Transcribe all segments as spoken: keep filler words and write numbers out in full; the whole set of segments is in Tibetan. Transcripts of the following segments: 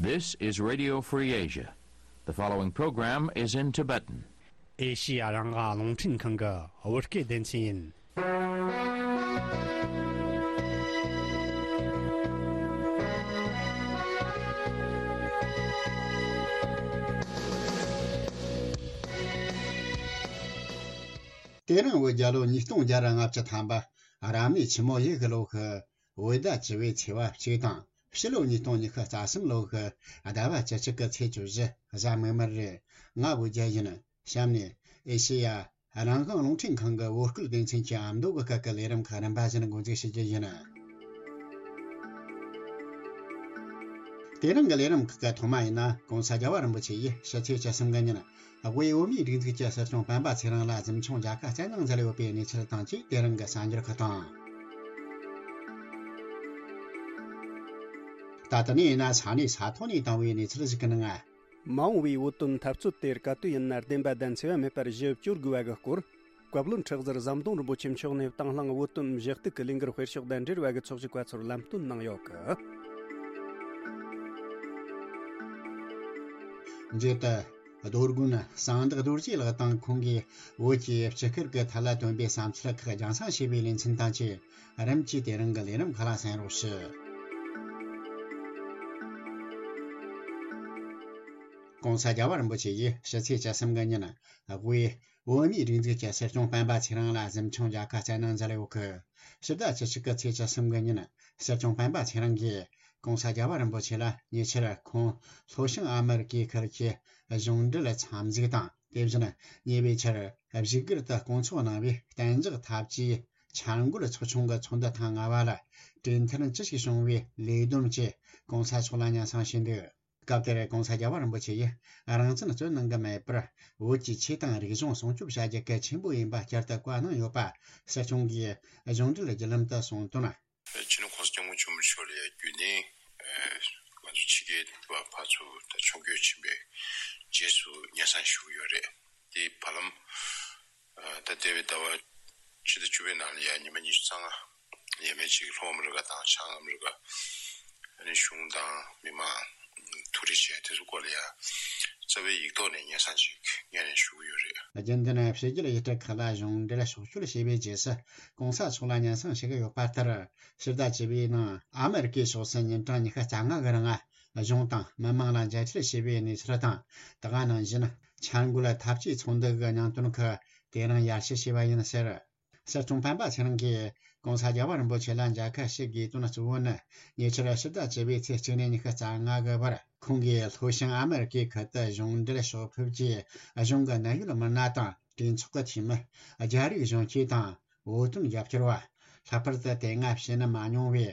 This is Radio Free Asia. The following program is in Tibetan. ཨེ་ཤི་ཡ་རང་དབང་རླུང་འཕྲིན་ཁང་གི་བོད་སྐད་སྡེ་ཚན་ཡིན། དེ་རིང་བོད་རྒྱལ་ལོ་ཉིས་སྟོང་བརྒྱ་ར་ལྔ་བཅུ་ཐམ་པ་རབ་གནས་ཆུ་མོ་ཡོས་གི་ལོ་གི་བོད་ཟླ་བཅུ་བའི་ཚེས་པ་གཅིག་དང་ཕྱི་ལོ་ཉིས་སྟོང་ཉི་ཤུ་རྩ་གསུམ་ལོ་གི་ཟླ་བ་བཅུ་གཅིག་གི་ཚེས་བཅུ་བཞི་གཟའ་མིག་དམར་རེད། ང་བོད་རྒྱལ་ཡིན། གཤམ་ནས་ཨེ་ཤེ་ཡ་རང་དབང་རླུང་འཕྲིན་ཁང་གི་བོད་སྐད་སྡེ་ཚན་གྱི་ཨ་མདོ་གི་སྐད་ཀྱི་ལས་རིམ་ཁག་རིམ་པ་བཞིན་འགོ་འཛུགས་བྱེད་རྒྱུ་ཡིན། དེ་རིང་གི་ལས་རིམ་ཁག་གི་ཐོག་མ་ཡིན་ན་༸གོང་ས་༸རྒྱལ་བ་རིན་པོ་ཆེ་ཡིས་ཕྱི་ཚེས་བཅུ་གསུམ་གི་ཉིན་དབུས་བོད་མིའི་སྒྲིག་འཛུགས་ཀྱི་སྲིད་སྐྱོང་སྤེན་པ་ཚེ་རིང་ལ་གཟིམ་ཆུང་མཇལ་ཁ་བསྩལ་གནང་མཛད་ཡོད་པའི་གནས་ཚུལ་དང་བཅས་དེ་རིང་གི་གསར་འགྱུར་ཁག་དང་། ད་ལྟ་ནས་ཡིན་ན་ས་གནས་ས་ཐོག་ནས་བཏང་བའི་གནས་ཚུལ་ཞིག་གི་ནང་། མ་འོངས་པའི་བོད་དོན་འཐབ་རྩོད་དེར་ག་དུས་ཡིན་ན་བདེན་པ་དང་འཚེ་བ་མེད་པར་ཞི་བ་བཅོལ་དགོས་པ་གི་སྐོར། བཀའ་བློན་ཁྲི་ཟུར་ཟམ་གདོང་རིན་པོ་ཆེ་མཆོག་ནས་དང་བླངས་བོད་དོན་གཞི་གཏུག་གི་ལས་འགུལ་སྤེལ་ཕྱོགས་དང་འབྲེལ་བ་གི་ཚོགས་ཞུགས་པ་ཚོར་ལམ་སྟོན་གནང་ཡོད་གི། མཇུག་ཏུ། རྡོ་དགོན་གསང་བདག་རྡོ་རྗེ་ལགས་དང་ཁོང་གིས་བོད་ཀྱི་སྤྱི་སྐོར་གྱི་ཐད་ལ་བཏོན་པའི་བསམ་ཚུལ་ཁག་རྒྱང་སྲིང་བྱས་པའི་ལེ་ཚན་དང་བཅས་རིམ་གྱིས་དེ་རིང་གི་ལས་རིམ་ཁག་ལ་གསན་རོགས་ཞུ། ༸གོང་ས་༸རྒྱལ་བ་རིན་པོ་ཆེ་ཡིས་ཕྱི་ཚེས་བཅུ་གསུམ་གི་ཉིན་དབུས་བོད་མིའི་སྒྲིག་འཛུགས་ཀྱི་སྲིད་སྐྱོང་སྤེན་པ་ཚེ་རིང་ལ་གཟིམ་ཆུང་མཇལ་ཁ་བསྩལ་གནང་མཛད་ཡོད་གི། ཕྱི་ཟླ་བཅུ་གཅིག་གི་ཚེས་བཅུ་གསུམ་གི་ཉིན་སྲིད་སྐྱོང་སྤེན་པ་ཚེ་རིང་གིས་༸གོང་ས་༸རྒྱལ་བ་རིན་པོ་ཆེ་ལ་ཉེ་ཆར་ཁོང་ལྷོ་བྱང་ཨ་མི་རི་ཀའི་ཁུལ་གྱི་གཞུང་འབྲེལ་འཚམས་གཟིགས་དང་། དེ་བཞིན་ཉེ་བའི་ཆར་བཞུགས་སྒར་དུ་སྐོང་ཚོགས་གནང་བའི་གཏན་འཇགས་འཐབ་ཇུས་འཆར་འགོད་ཚོགས་ཆུང་གི་ཚོགས་འདུ་ཐེངས་ལྔ་པ་ལ་གྲོས་མཐུན་ཅི་ཞིག་བྱུང་བའི་ལས་བསྡོམས་བཅས་༸གོང་ས་མཆོག་ལ་སྙན་སེང་ཞུས་འདུག། སྐབས་དེར་༸གོང་ས་༸རྒྱལ་བ་རིན་པོ་ཆེ་ཡིས་རང་བཙན་རྩོད་གནང་གི་མེད་པར་བོད་ཀྱི་ཆོས་དང་རིག་གཞུང་སྲུང་སྐྱོབ་བྱ་རྒྱུ་གལ་ཆེན་པོ་ཡིན་པ་བསྐྱར་དུ་བཀའ་གནང་ཡོད་པ་སྲིད་སྐྱོང་གིས་གཞུང་འབྲེལ་བརྒྱུད་ལམ་དུ་གསུངས་དོན། སྤྱི་ནོར་༸གོང་ས་༸སྐྱབས་མགོན་ཆེན་པོ་མཆོག་ལ་ཡང་རྒྱུན་ལྡན་ང་ཚོ་ཕྱི་རྒྱལ་བ་ཕར་ཚུར་ད་ཕྱོགས་བསྐྱོད་ཕྱིན་པའི་རྗེས་སུ་སྙན་སེང་ཞུ་གི་ཡོད་རེད། དེའི་བར་ལམ། ད་འདས་པའི་ཟླ་བ་ཕྱི་ཟླ་བཅུ་པའི་ནང་ལ་ཡང་ཉི་མ་ཉི་ཤུ་རྩ་ལྔ་ཡས་མས་ཅིག་ལྷོ་ཨ་མི་རི་ཀ་དང་བྱང་ཨ་མི་རི་ཀ་ཨ་ནི་གཞུང་དང་མི་མང་ཐུག་འཕྲད་བྱས་དེ་ཚོ་སྐོར་ལ་ཡང་རྩ་བའི་ཡིག་ཐོག་ནས་སྙན་སེང་ཅིག་སྙན་ནས་ཞུ་གི་ཡོད་རེད། རྒྱུན་ལྡན་ཕྱི་རྒྱལ་ཡུལ་གྲུ་ཁག་ལ་གཞུང་འབྲེལ་ཕྱོགས་བསྐྱོད་བྱས་པའི་རྗེས་སུ་༸གོང་ས་མཆོག་ལ་སྙན་སེང་ཞུ་གི་ཡོད་པ་ལྟར་ཕྱི་ཟླ་བཅུ་པའི་ནང་ཨ་མི་རི་ཀའི་ཕྱོགས་སུ་ཉིན་གྲངས་ཉི་ཤུ་རྩ་ལྔ་གི་རིང་གཞུང་དང་མི་མང་ལ་མཇལ་འཕྲད་བྱས་པའི་གནས་ཚུལ་དང་། དེ་ག་ནང་བཞིན་འཆར་འགོད་འཐབ་ཇུས་ཚོགས་འདུ་གི་སྙིང་དོན་ཁག་དེ་རིང་ཡར་ཞུ་བྱས་པ་ཡིན་ཟེར། སྲིད་སྐྱོང་སྤེན་པ་ཚེ་རིང་གིས་༸གོང་ས་༸རྒྱལ་བ་རིན་པོ་ཆེ་ལ་མཇལ་ཁ་ཞུ་དགོས་དོན་གཙོ་བོ་ནི་ཉེ་ཆར་ཕྱི་ཟླ་བཅུ་པའི་ཚེས་གཅིག་ནས་ཉི་ཤུ་རྩ་ལྔ་གི་བར་ཁོང་གིས་ལྷོ་བྱང་ཨ་མི་རི་ཀའི་ཁུལ་དུ་གཞུང་འབྲེལ་ཕྱོགས་ཕེབས་ཀྱིས་གཞུང་གི་གནད་ཡོད་མི་སྣ་དང་གྲོས་ཚོགས་ཀྱི་འཐུས་མི། རྒྱ་རིགས་གཞོན་སྐྱེས་དང་བོད་དོན་རྒྱབ་སྐྱོར་བ། ལྷག་པར་དུ་དེ་སྔ་བྱིན་མ་མྱོང་བའི་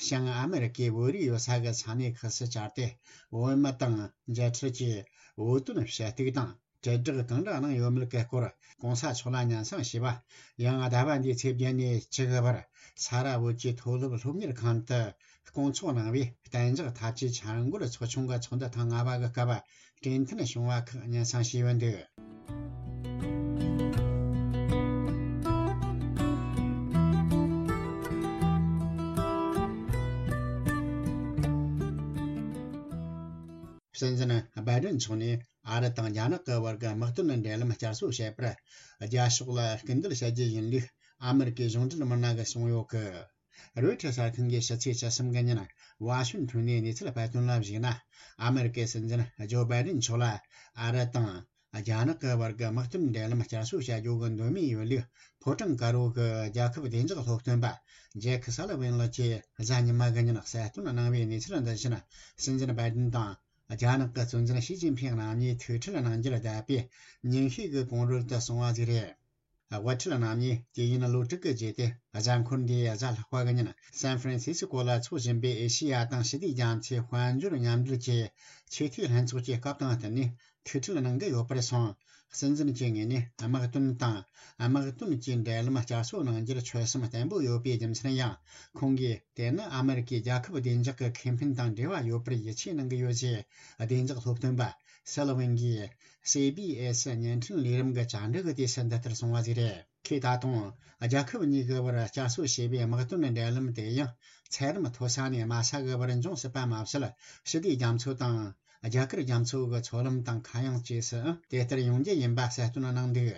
བྱང་ཨ་མི་རི་ཀའི་བོད་རིགས་ཡོད་ས་གི་ས་གནས་ཁག་སུ་བཅར་ཏེ་བོད་མི་དང་མཇལ་འཕྲད་ཀྱིས་བོད་དོན་ཞུ་གཏུག་དང་། དྲིལ་བསྒྲགས་གང་འདྲ་གནང་ཡོད་མེད་ཀྱི་སྐོར་༸གོང་ས་མཆོག་ལ་སྙན་སེང་ཞུས་པ། ཡང་ཟླ་བ་འདིའི་ཚེས་བརྒྱད་ནས་བཅུ་དགུ་བར་ས་རཱ་བོད་ཀྱི་མཐོ་སློབ་སློབ་གཉེར་ཁང་དུ་སྐོང་ཚོགས་གནང་བའི་གཏན་འཇགས་འཐབ་ཇུས་འཆར་འགོད་ཚོགས་ཆུང་གི་ཚོགས་འདུ་ཐེངས་ལྔ་པ་གི་སྐབས་གྲོས་མཐུན་བྱུང་བ་ཁག་སྙན་སེང་ཞུས་ཡོད་འདུག། སྲིད་འཛིན་སྦ་ཏན་མཆོག་ནས་ཨ་རི་དང་རྒྱ་ནག་གི་བར་གྱི་དམག་དོན་འབྲེལ་ལམ་བསྐྱར་གསོ་བྱེད་པར་རྒྱ་ཕྱོགས་ལ་སྐུལ་འདེད་བྱ་རྒྱུ་ཡིན་ལུགས་ཨ་མི་རི་ཀའི་གཞུང་འབྲེལ་མི་སྣ་གིས་གསུངས་ཡོད་གི། རོའི་ཊར་གསར་ཁང་གིས་ཕྱི་ཚེས་བཅུ་གསུམ་གི་ཉིན་ཝ་ཤིང་ཊོན་ནས་གནས་ཚུལ་སྤེལ་དོན་ལ་གཞིགས་ན། ཨ་མི་རི་ཀའི་སྲིད་འཛིན་ཇོ་སྦ་ཏན་མཆོག་ལ་ཨ་རི་དང་རྒྱ་ནག་གི་བར་གྱི་དམག་དོན་འབྲེལ་ལམ་བསྐྱར་གསོ་བྱ་རྒྱུ་གི་འདོད་མོས་ཡོད་ལུགས་ཕོ་བྲང་དཀར་པོ་གི་རྒྱལ་ཁབ་བདེ་འཇགས་སློབ་སྟོན་པ་ཇེ་ཁི་སཱ་ལི་ཝན་ལགས་ཀྱིས་གཟའ་ཉི་མ་གི་ཉིན་གསལ་སྟོན་གནང་བའི་གནས་ཚུལ་འདི་བཞིན། སྲིད་འཛིན་སྦ་ཏན་དང་རྒྱ་ནག་གི་གཙོ་འཛིན་ཞི་ཅིན་ཕིང་རྣམ་གཉིས་ཐུག་འཕྲད་གནང་རྒྱུར་བསྡད་པའི་ཉིན་ཤས་ཀྱི་གོང་རོལ་དུ་སོང་བ་ཞིག་རེད། དབུ་ཁྲིད་རྣམ་གཉིས་དུས་ཡུན་ལོ་དྲུག་གི་རྗེས་ཏེ་གཟའ་འཁོར་འདིའི་གཟའ་ལྷག་པ་གི་ཉིན་སན་ཧྥ་རན་སི་སི་ཀོ་ལ་འཚོགས་བཞིན་པའི་ཨེ་ཤེ་ཡ་དང་ཞི་བདེ་རྒྱ་མཚོའི་དཔལ་འབྱོར་མཉམ་འབྲེལ་གྱི་ཆེས་མཐོའི་ལྷན་ཚོགས་ཀྱི་སྐབས་དང་བསྟུན་ནས་ཐུག་འཕྲད་གནང་གི་ཡོད་པར་སོང་། སྲིད་འཛིན་གྱི་ངོས་ནས་དམག་དོན་དང་དམག་དོན་གྱི་འབྲེལ་ལམ་བསྐྱར་གསོ་གནང་རྒྱུར་ཆོད་སེམས་བརྟན་པོ་ཡོད་པའི་རྒྱུ་མཚན་ཡང་ཁོང་གིས་དེ་ནི་ཨ་མི་རི་ཀའི་རྒྱལ་ཁབ་བདེ་འཇགས་ཀྱི་ཁེ་ཕན་དང་འབྲེལ་བ་ཡོད་པར་ཡིད་ཆེས་གནང་གི་ཡོད་ཅེས་བདེ་འཇགས་སློབ་སྟོན་པ་ སི་ལོ་ཝེན་གྱིས་སི་བི་ཨེ་སི་བརྙན་འཕྲིན་ལས་རིམ་གྱི་བཅར་འདྲི་གི་དུས་སུ་འདི་ལྟར་གསུངས་པ་ཞིག་རེད། ཁོས་ད་དུང་རྒྱལ་ཁབ་གཉིས་ཀྱི་བར་བསྐྱར་གསོ་བྱས་པའི་དམག་དོན་འབྲེལ་ལམ་དེ་ཡང་ཚད་རིམ་མཐོ་ས་ནས་དམའ་ས་གི་བར་འབྱུང་སྲིད་པ་མ་ཟད། ཞི་བདེ་རྒྱ་མཚོ་དང་རྒྱ་གར་རྒྱ་མཚོ་གི་མཚོ་ལམ་དང་ཁ་གཡང་བཅས་སུ་དེ་ལྟར་ཡོང་རྒྱུ་ཡིན་པ་གསལ་སྟོན་གནང་འདུག་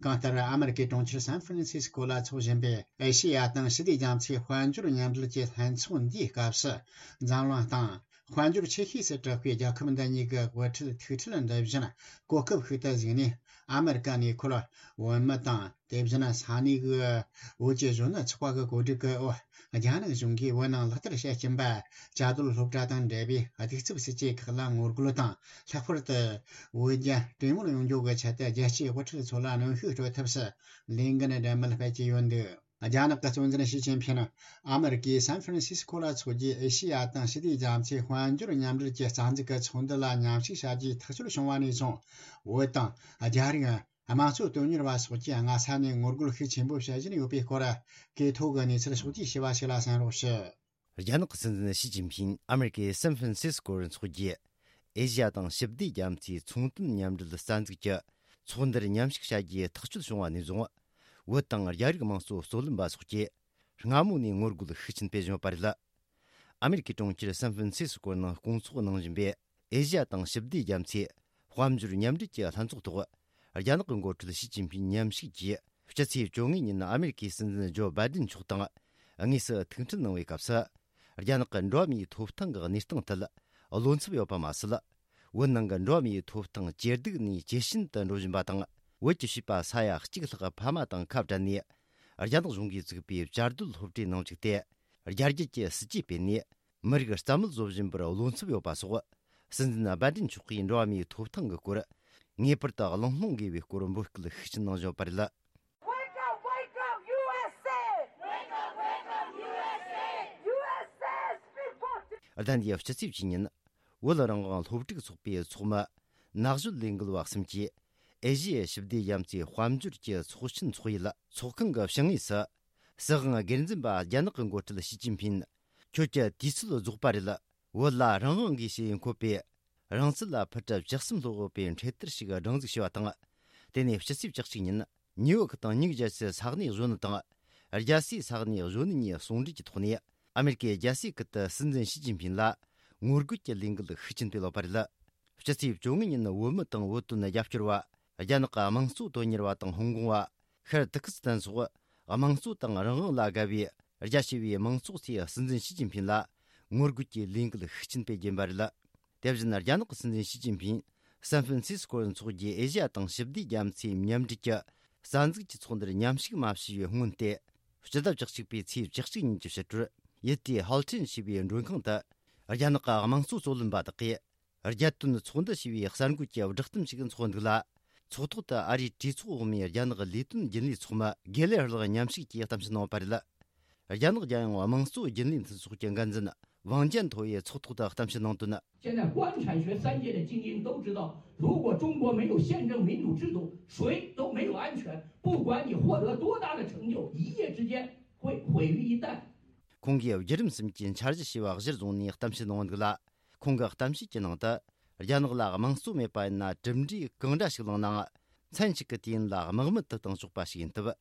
གང་ལྟར། ཨ་མི་རི་ཀའི་གྲོང་ཁྱེར་སན་ཧྥ་རན་སིས་ཀོ་ལ་འཚོགས་བཞིན་པའི་ཨེ་ཤེ་ཡ་དང་ཞི་བདེ་རྒྱ་མཚོའི་དཔལ་འབྱོར་མཉམ་འབྲེལ་གྱི་ལྷན་ཚོགས་འདིའི་སྐབས་སུ། འཛམ་གླིང་སྟེང་དཔལ་འབྱོར་ཆེ་ཤོས་སུ་གྲགས་པའི་རྒྱལ་ཁབ་འདི་གཉིས་ཀྱི་དབུ་ཁྲིད་ཐུག་འཕྲད་འདི་བཞིན་གོ་སྐབས་ཤིག་ཏུ་གཟིགས་ནས། ཨ་མི་རི་ཀ་ནས་འཁོར་བོད་མི་དང་། དེ་བཞིན་ས་གནས་ཀྱི་བོད་ཀྱི་གཞོན་ནུ་ཚོགས་པ་གི་གོ་སྒྲིག་གི་འོག་རྒྱ་ནག་གཞུང་གིས་བོད་ནང་ལག་བསྟར་བྱེད་ཀྱིན་པ། བཅའ་སྡོད་སློབ་གྲྭ་དང་འབྲེལ་བའི་གདུག་རྩུབ་སྲིད་བྱུས་ཁག་ལ་ངོ་རྒོལ་དང་། ལྷག་པར་དུ་བོད་རྒྱ་གྲོས་མོལ་ཡོང་རྒྱུ་གི་ཆེད་དུ་རྒྱལ་སྤྱིའི་དབུ་ཁྲིད་ཚོ་ལ་གནོན་ཤུགས་སྤྲོད་ཐབས་སུ་ལས་འགན་གྲོས་མོལ་སྤེལ་གྱི་ཡོད་འདུག་རྒྱ་ནག་གི་གཙོ་འཛིན་ཞི་ཅིན་ཕིན་ཨ་མི་རི་ཀའི་སན་ཧྥ་རན་སིས་ཀོ་ལ་འཚོགས་རྒྱུའི་ཨེ་ཤེ་ཡ་དང་ཞི་བདེ་རྒྱ་མཚོའི་དཔལ་འབྱོར་མཉམ་འབྲེལ་གྱི་རྩ་འཛུགས་ཀྱི་ཚོགས་འདུ་ལ་མཉམ་ཞུགས་བྱ་རྒྱུའི་ཐག་གཅོད་བྱུང་བ་ནས་བཟུང་། བོད་དང་རྒྱ་རིགས། དམངས་གཙོ་དོན་གཉེར་བ་སོགས་ཀྱིས་སྔ་ས་ནས་ངོ་རྒོལ་ཤུགས་ཆེན་པོ་བྱེད་བཞིན་ཡོད་པའི་སྐོར། གོ་ཐོས་ཀྱི་གནས་ཚུལ་ཕྱོགས་བསྡུས་ཞུས་པ་ཞིག་ལ་གསན་རོགས་ཞུ། རྒྱ་ནག་གི་སྲིད་འཛིན་ཞི་ཅིན་ཕིན་ཨ་མི་རི་ཀའི་སན་ཧྥ་རན་སིས་ཀོར་འཚོགས་རྒྱུའི་ཨེ་ཤི་ཡ་དང་ཞི་བདེ་རྒྱ་མཚོའི་ཚོང་དོན་མཉམ་འབྲེལ་རྩ་འཛུགས་ཀྱི་ཚོགས་འདུར་མཉམ་ཞུགས་བྱ་རྒྱུའི་ཐག་གཅོད་བྱུང་བ་ནས་བཟུང་། བོད་དང་རྒྱ་རིགས་དམངས་གཙོ་རྩོད་ལེན་པ་སོགས་ཀྱིས་སྔ་མོ་ནས་ངོ་རྒོལ་ཤུགས་ཆེན་སྤེལ་བཞིན་ཡོད་པ་རེད། ཨ་མི་རི་ཀའི་གྲོང་ཁྱེར་སན་ཧྥ་རན་སིས་ཀོ་ནང་སྐོང་ཚོགས་གནང་བཞིན་པའི་ཨེ་ཤི་ཡ་དང་ཞི་བདེ་རྒྱ་མཚོའི་དཔལ་འབྱོར་མཉམ་འབྲེལ་གྱི་ལྷན་ཚོགས་ཐོག་རྒྱ་ནག་གི་འགོ་ཁྲིད་ཞི་ཅིན་ཕིན་མཉམ་ཞུགས་ཀྱིས་སྤྱི་ཚེས་བཅོ་ལྔ་ཉིན་ཨ་མི་རི་ཀའི་སྲིད་འཛིན་ཇོ་བྷའི་ཏིན་མཆོག་དང་དངོས་སུ་ཐུག་འཕྲད་གནང་བའི་སྐབས་སུ། རྒྱ་ནག་གི་འགྲོ་བ་མིའི་ཐོབ་ཐང་གི་གནས་སྟངས་ཐད་བློ་འཚབ་ཡོད་པ་མ་ཟད། བོད་ནང་གི་འགྲོ་བ་མིའི་ཐོབ་ཐང་ཇེ་སྡུག་ནས་ཇེ་ཞན་དུ་འགྲོ་བཞིན་པ་དང་། བོད་ཀྱི་བྱིས་པ་ས་ཡ་གཅིག་ལྷག་ཕ་མ་དང་ཁ་བྲལ་ནས། རྒྱ་ནག་གཞུང་གིས་བཙུགས་པའི་བཅའ་སྡོད་སློབ་གྲྭའི་ནང་བཅུག་སྟེ། རྒྱ་རྒྱུད་ཀྱི་སྲིད་ཇུས་སྤེལ་ནས། མི་རིགས་རྩ་མེད་བཟོ་བཞིན་པར་བློ་འཚབ་ཡོད་པ་སོགས། སྲིད་འཛིན་བྷའི་ཏིན་མཆོག་གིས་འགྲོ་བ་མིའི་ཐོབ་ཐང་གི་སྐོར། ངེས་པར་དུ་གླེང་སློང་དགོས་པའི་སྐོར་འབོད་སྐུལ་ཤུགས་ཆེན་གནང་བཞིན་ཡོད་པ་རེད། Wake up, wake up, U S A! Wake up, wake up, U S A! U S A is big book! ཟླ་འདིའི་སྤྱི་ཚེས་བཅུ་ཉིན། བོད་རང་དབང་སློབ་ཕྲུག་ཚོགས་པའི་ཚོགས་མི་ནག་གཞོལ་ལས་འགུལ་བ་གསུམ་གྱིས། ཨེ་ཤི་ཡའི་ཞི་བདེ་རྒྱ་མཚོའི་དཔལ་འབྱོར་གྱི་ཚོགས་ཆེན་འཚོགས་ཡུལ་ཚོགས་ཁང་གི་བྱང་ངོས་སུ། སྲིད་དབང་སྒེར་འཛིན་པ་རྒྱ་ནག་གི་འགོ་ཁྲིད་ཞི་ཅིན་ཕིན། ཁྱོད་ཀྱི་དུས་ཚོད་རྫོགས་པ་རེད། བོད་ལ་རང་དབང་དགོས་ཞེས་འཁོད་པའི་རང་བཙན་ལ་ཕུལ་གྲབས་བཅུ་གསུམ་སློབ་ཡོད་པའི་འཕྲེད་དར་ཞིག་སྒྲེང་འཛུགས་བྱས་པ་དང་། དེ་ནས་སྤྱི་ཚེས་བཅུ་གཅིག་ཉིན། ནིའུ་ཡོག་དང་ནིའུ་ཇར་སི་ས་གནས་གཞོན་ནུ་དང་། རྒྱལ་སའི་ས་གནས་གཞོན་ནུ་གཉིས་ཟུང་འབྲེལ་གྱི་ཐོག་ནས། ཨ་མེ་རི་ཀའི་རྒྱལ་སའི་ཁུལ་དུ་སྲིད་འཛིན་ཞི་ཅིན་ཕིན་ལ་ངོ་རྒོལ་གྱི་ལས་འགུལ་ཤུགས་ཆེན་སྤེལ་ཡོད་པ་རེད། སྤྱི་ཚེས་བཅོ་ལྔ་ཉིན་བོད་མི་དང་བོད་དོན་རྒྱབ་སྐྱོར་བ། རྒྱ་ནག་གི་དམངས་གཙོ་དོན་གཉེར་བ་དང་ཧོང་ཀོང་བ། ཤར་ཏུར་ཀི་སི་ཐན་སོགས་དམངས་གཙོ་དང་རང་དབང་ལ་དགའ་བའི་རྒྱ་ཆེ་བའི་མང་ཚོགས་ཚོས་སྲིད་འཛིན་ཞི་ཅིན་ཕིན་ལ་ངོ་རྒོལ་གྱི་ལས་འགུལ་ཤུགས་ཆེན་སྤེལ་གྱིན་པ་རེད། དེ་བཞིན་རྒྱ་ནག་གི་སྲིད་འཛིན་ཞི་ཅིན་ཕིན་སན་ཧྥ་རན་སིས་ཀོར་འཚོགས་རྒྱུའི་ཨེ་ཤི་ཡ་དང་ཞི་བདེ་རྒྱ་མཚོའི་མཉམ་འབྲེལ་གྱི་རྩ་འཛུགས་ཀྱི་ཚོགས་འདུར་མཉམ་ཞུགས་མ་བྱས་པའི་སྔོན་ཏེ། སྤྱི་ཟླ་བཅུ་གཅིག་པའི་ཚེས་བཅུ་གཅིག་ཉིན་གྱི་ཕྱི་དྲོར་ཡུལ་དེའི་ཧལ་ཁྲིན་ཞེས་པའི་མགྲོན་ཁང་དུ། རྒྱ་ནག་གི་དམངས་གཙོ་རྩོད་ལེན་པ་དག་གིས། རྒྱལ་དོན་ཚོགས་འདུ་ཞེས་པའི་གསར་འགོད་ཀྱི་བསྒྲགས་གཏམ་ཞིག་འཚོགས་འདུག་ལ། ཚོགས་ཐོག་ཏུ་ཨ་རིའི་གྲོས་ཚོགས་འོག་མའི་རྒྱ་ནག་ལས་དོན་རྒྱུན་ལས་ཚོགས་མི་དགེ་ལེགས་ལགས་མཉམ་ཞུགས་ཀྱིས་གཏམ་བཤད་གནང་བ་རེད། རྒྱ་ནག་རྒྱལ་ཡོངས་དམངས་གཙོ་རྒྱུན་ལས་མཐུན་ཚོགས་ཀྱི་འགན་འཛིན་ཝང་ཅན་ཐོ་ཡིས་ཚོགས་ཐོག་ཏུ་གཏམ་བཤད་གནང་དོན། 现在官产学三界的精英都知道，如果中国没有宪政民主制度，谁都没有安全。不管你获得多大的成就，一夜之间会毁于一旦。 ཁོང་གིས་བརྒྱུད་རིམ་གསུམ་གྱི་འཆར་གཞི་ཞེས་པ་གཞིར་བཟུང་ནས་གཏམ་བཤད་གནང་འདུག་ལ། ཁོང་གི་གཏམ་བཤད་ཀྱི་ནང་དུ། རྒྱ་ནག་ལ་དམངས་གཙོ་མེད་པ་ཡིན་ན་གྲུབ་འབྲས་གང་འདྲ་ཞིག་བླངས་ནའང་། མཚན་གཅིག་གི་དུས་ཡུན་ལ་དམག་མི་དུ་བཏང་ཆོག་པ་ཞིག་ཡིན་སྟབས།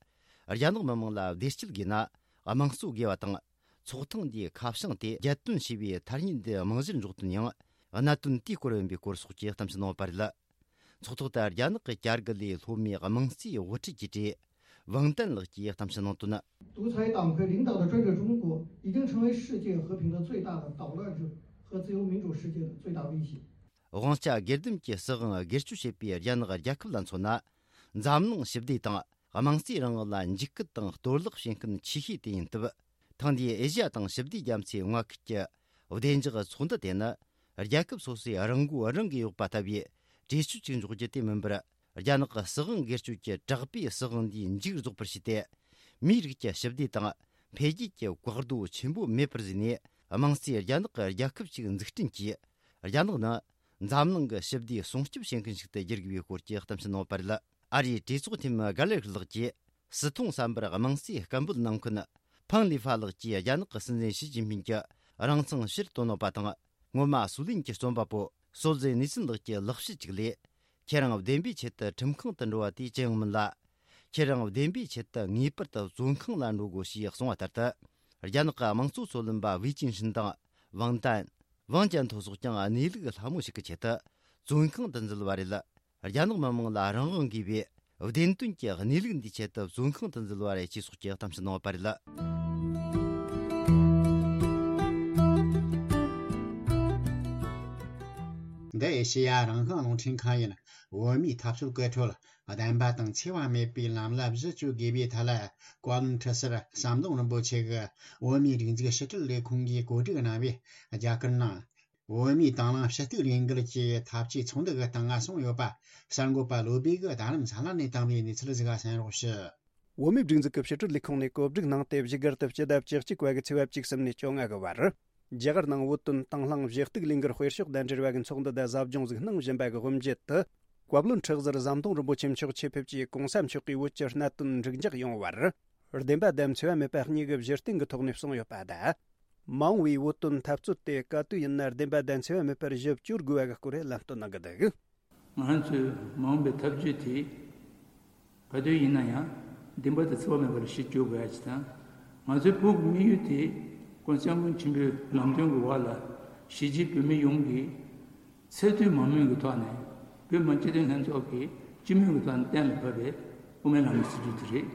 རྒྱ་ནག་མི་དམངས་ལ་བདེ་སྐྱིད་དགོས་ན་དམངས་གཙོ་དགོས་པ་དང་། ཚོགས་ཐེངས་འདིའི་ཁ་བྱང་དེ་རྒྱལ་དོན་ཞེས་པའི་ཐ་སྙད་འདི་རྨང་གཞིར་འཇོག་དོན་ཡང་གནད་དོན་དེའི་སྐོར་ཡིན་པའི་སྐོར་སོགས་ཀྱི་གཏམ་བཤད་གནང་བ་རེད། ཚོགས་ཐོག་ཏུ་རྒྱ་ནག་གི་བསྐྱར་སྒུག་ལས་སློབ་མའི་དམངས་གཙོའི་དབུ་ཁྲིད་ཀྱི་གྲས་ཝང་ཏན་ལགས་ཀྱིས་གཏམ་བཤད་གནང་དོན། 独裁党派领导的专制中国已经成为世界和平的最大的捣乱者和自由民主世界的最大威胁。 དབང་ཆ་སྒེར་སྡེམ་གྱི་སྲིད་དབང་སྒེར་གཅོད་བྱེད་པའི་རྒྱ་ནག་རྒྱལ་ཁབ་ལ་མཚོན་ན། འཛམ་གླིང་ཞི་བདེ་དང་དམངས་གཙོའི་རིང་ལུགས་ལ་འཇིགས་སྐུལ་དང་གཏོར་བརླག་བྱེད་མཁན་ཆེ་ཤོས་དེ་ཡིན་སྟབས། ཐེངས་འདིའི་ཨེ་ཤི་ཡ་དང་ཞི་བདེ་རྒྱ་མཚོའི་མངའ་ཁུལ་གྱི་བདེ་འཇགས་ཚོགས་འདུ་དེ་ནི། རྒྱལ་ཁབ་སོ་སོས་རང་མགོ་རང་གིས་གཡོགས་པ་ལྟ་བུའི་གྲོས་ཆོད་ཅིག་འཇོག་རྒྱུ་དེ་མིན་པར། རྒྱ་ནག་གི་སྲིད་དབང་སྒེར་གཅོད་ཀྱི་དྲག་པོའི་སྲིད་དབང་འདིའི་མཇུག་རྫོགས་པར་བྱས་ཏེ། མིའི་རིགས་ཀྱི་ཞི་བདེ་དང་འཕེལ་རྒྱས་ཀྱི་བཀག་རྡོ་ཆེན་པོ་མེད་པར་བཟོས་ནས། དམངས་གཙོའི་རྒྱ་ནག་གི་རྒྱལ་ཁབ་ཅིག་འཛུགས་སྐྲུན་གྱིས། རྒྱ་ནག་ནི་འཛམ་གླིང་གི་ཞི་བདེ་སྲུང་སྐྱོབ་བྱེད་མཁན་ཞིག་ཏུ་བསྒྱུར་དགོས་པའི་སྐོར་གྱི་གཏམ་བཤད་གནང་བ་རེད། ཨ་རིའི་གྲོས་ཚོགས་འཐུས་མི་གྷ་ལེར་ལགས་ཀྱིས། སྲིད་མཐོང་བསམ་པར་དམངས་གཙོའི་སྐད་འབོད་གནང་མཁན་ཕང་ལི་ཧྥ་ལགས་ཀྱིས་རྒྱ་ནག་གི་སྲིད་འཛིན་ཞི་ཅིན་ཕིན་གྱི་རང་མཚང་ཕྱིར་བཏོན་གནང་བ་དང་། སྔོན་མ་སུའུ་ལེན་གྱི་རྩོམ་པ་པོ་ སྲོལ་འཛིན་ནིག་སིན་ལགས་ཀྱི་ལག་བཤད་ཅིག་ལས། ཁྱེད་རང་བདེན་པའི་ཆེད་དུ་ཁྲིམས་ཁང་དུ་འགྲོ་བ་དེ་ཅི་ཡང་མིན་ལ། ཁྱེད་རང་བདེན་པའི་ཆེད་དུ་ངེས་པར་དུ་བཙོན་ཁང་ལ་འགྲོ་དགོས་ཞེས་གསུངས་པ་ལྟར་དུ། རྒྱ་ནག་གི་དམངས་གཙོ་འཚོ་ལམ་པ་ཝེ་ཅིན་ཧྲིན་དང་ཝང་ཏན། ཝང་ཅན་ཐོ་སོགས་ཀྱང་གནས་ལུགས་ལྷ་མོ་ཞིག་གི་ཆེད་དུ་བཙོན་ཁང་དུ་འཛུལ་བ་རེད། རྒྱ་ནག་མི་དམངས་ལ་རང་དབང་དགོས་པས། བདེན་དོན་གྱི་གནས་ལུགས་འདིའི་ཆེད་དུ་བཙོན་ཁང་དུ་འཛུལ་བ་རེད་ཅེས་སོགས་ཀྱི་གཏམ་བཤད་གནང་བ་རེད། འདི་ཨེ་ཤེ་ཡ་རང་དབང་རླུང་འཕྲིན་ཁང་ཡིན། བོད་མིའི་འཐབ་རྩོད་སྐུལ་ཁྲོད་བདེན་པ་དང་འཚེ་བ་མེད་པའི་ལམ་ལ་གཞི་བཅོལ་དགོས་པའི་ཐད་ལ། བཀའ་བློན་ཁྲི་ཟུར་ཟམ་གདོང་རིན་པོ་ཆེ་གིས་བོད་མིའི་སྒྲིག་འཛུགས་ཕྱི་དྲིལ་ལས་ཁུངས་ཀྱིས་གོ་སྒྲིག་གནང་བའི་རྒྱ་གར་ནང་བོད་མིའི་དང་བླངས་ཕྱི་གཏུག་ལས་འགུལ་གྱི་འཐབ་ཇུས་ཚོགས་འདུ་གི་སྟེང་ང་གསུངས་ཡོད་པ། གསར་འགོད་པ་བློ་བྷེ་གིས་རྡ་རམ་ས་ལ་ནས་བཏང་བའི་གནས་ཚུལ་ཞིག་གསན་རོགས་ཞུ། བོད་མིའི་སྒྲིག་འཛུགས་ཀྱི་ཕྱི་དྲིལ་ལས་ཁུངས་ནས་གོ་སྒྲིག་གནང་སྟེ། བཞུགས་སྒར་དུ་སྤྱི་ཟླ་བཅུ་གཅིག་པ་གི་ཚེས་པ་བཅུ་གསུམ་ནས་བཅོ་ལྔ་གི་བར། རྒྱ་གར་ནང་བོད་དོན་དང་བླངས་ཞི་གཏུག་ལས་འགུལ་སྤེལ་ཕྱོགས་དང་འབྲེལ་བ་གི་ཚོགས་འདུ་དེ་གཟབ་སྦྱོང་ཟིག་གནང་བཞིན་པ་གི་དབུ་འབྱེད་དུ། བཀའ་བློན་ཁྲི་ཟུར་ཟམ་གདོང་རིན་པོ་ཆེ་མཆོག་ཆེད་ཕེབས་ཀྱིས་གོང་ས་མཆོག་གིས་བོད་ཀྱི་གནད་དོན་འགྲིག་འཇགས་ཡོང་བར། བདེན་པ་དང་འཚེ་བ་མེད་པ་གཉིས་ཀྱི་བཞུར་རྟེན་གྱི་ཐོག་ནས་གསུངས་ཡོད་པ་དང་། མ་འོངས་པའི་བོད་དོན་འཐབ་རྩོད་དེ་ག་དུས་ཡིན་ན་བདེན་པ་དང་འཚེ་བ་མེད་པར་ཞིབ་བསྐྱོར་དགོས་པ་གི་སྐོར་ལམ་སྟོན་གནང་གི་འདུག། ང་ཚོའི་མ་འོངས་པའི་ཐབས་ཇུས་དེ་ག་དུས་ཡིན་ན་ཡང་བདེན་པ་དང་འཚེ་བ་མེད་པར་ཞིབ་བསྐྱོར་དགོས་ཡ་ཅིག་དང་། ང་ཚོའི་བོད་ཀྱི་དམིགས་ཡུལ་དེ་༸གོང་ས་༸སྐྱབས་མགོན་ཆེན་པོའི་ལམ་སྟོན་གྱི་འོག་ལ་གཞིས་བྱེས་བོད་མི་ཡོངས་ཀྱིས་ཚད་མཐོའི་མ་དངུལ་གྱི་ཐོག་ནས་བོད་མི་སྤྱི་མཐུན་ལྷན་ཚོགས་ཀྱིས་སྤྱི་མོས་ཀྱི་ཐོག་ནས་གཏན་ལ་ཕབ་པའི་དབུ་མའི་ལམ་གྱི་སྲིད་བྱུས་དེ་རེད།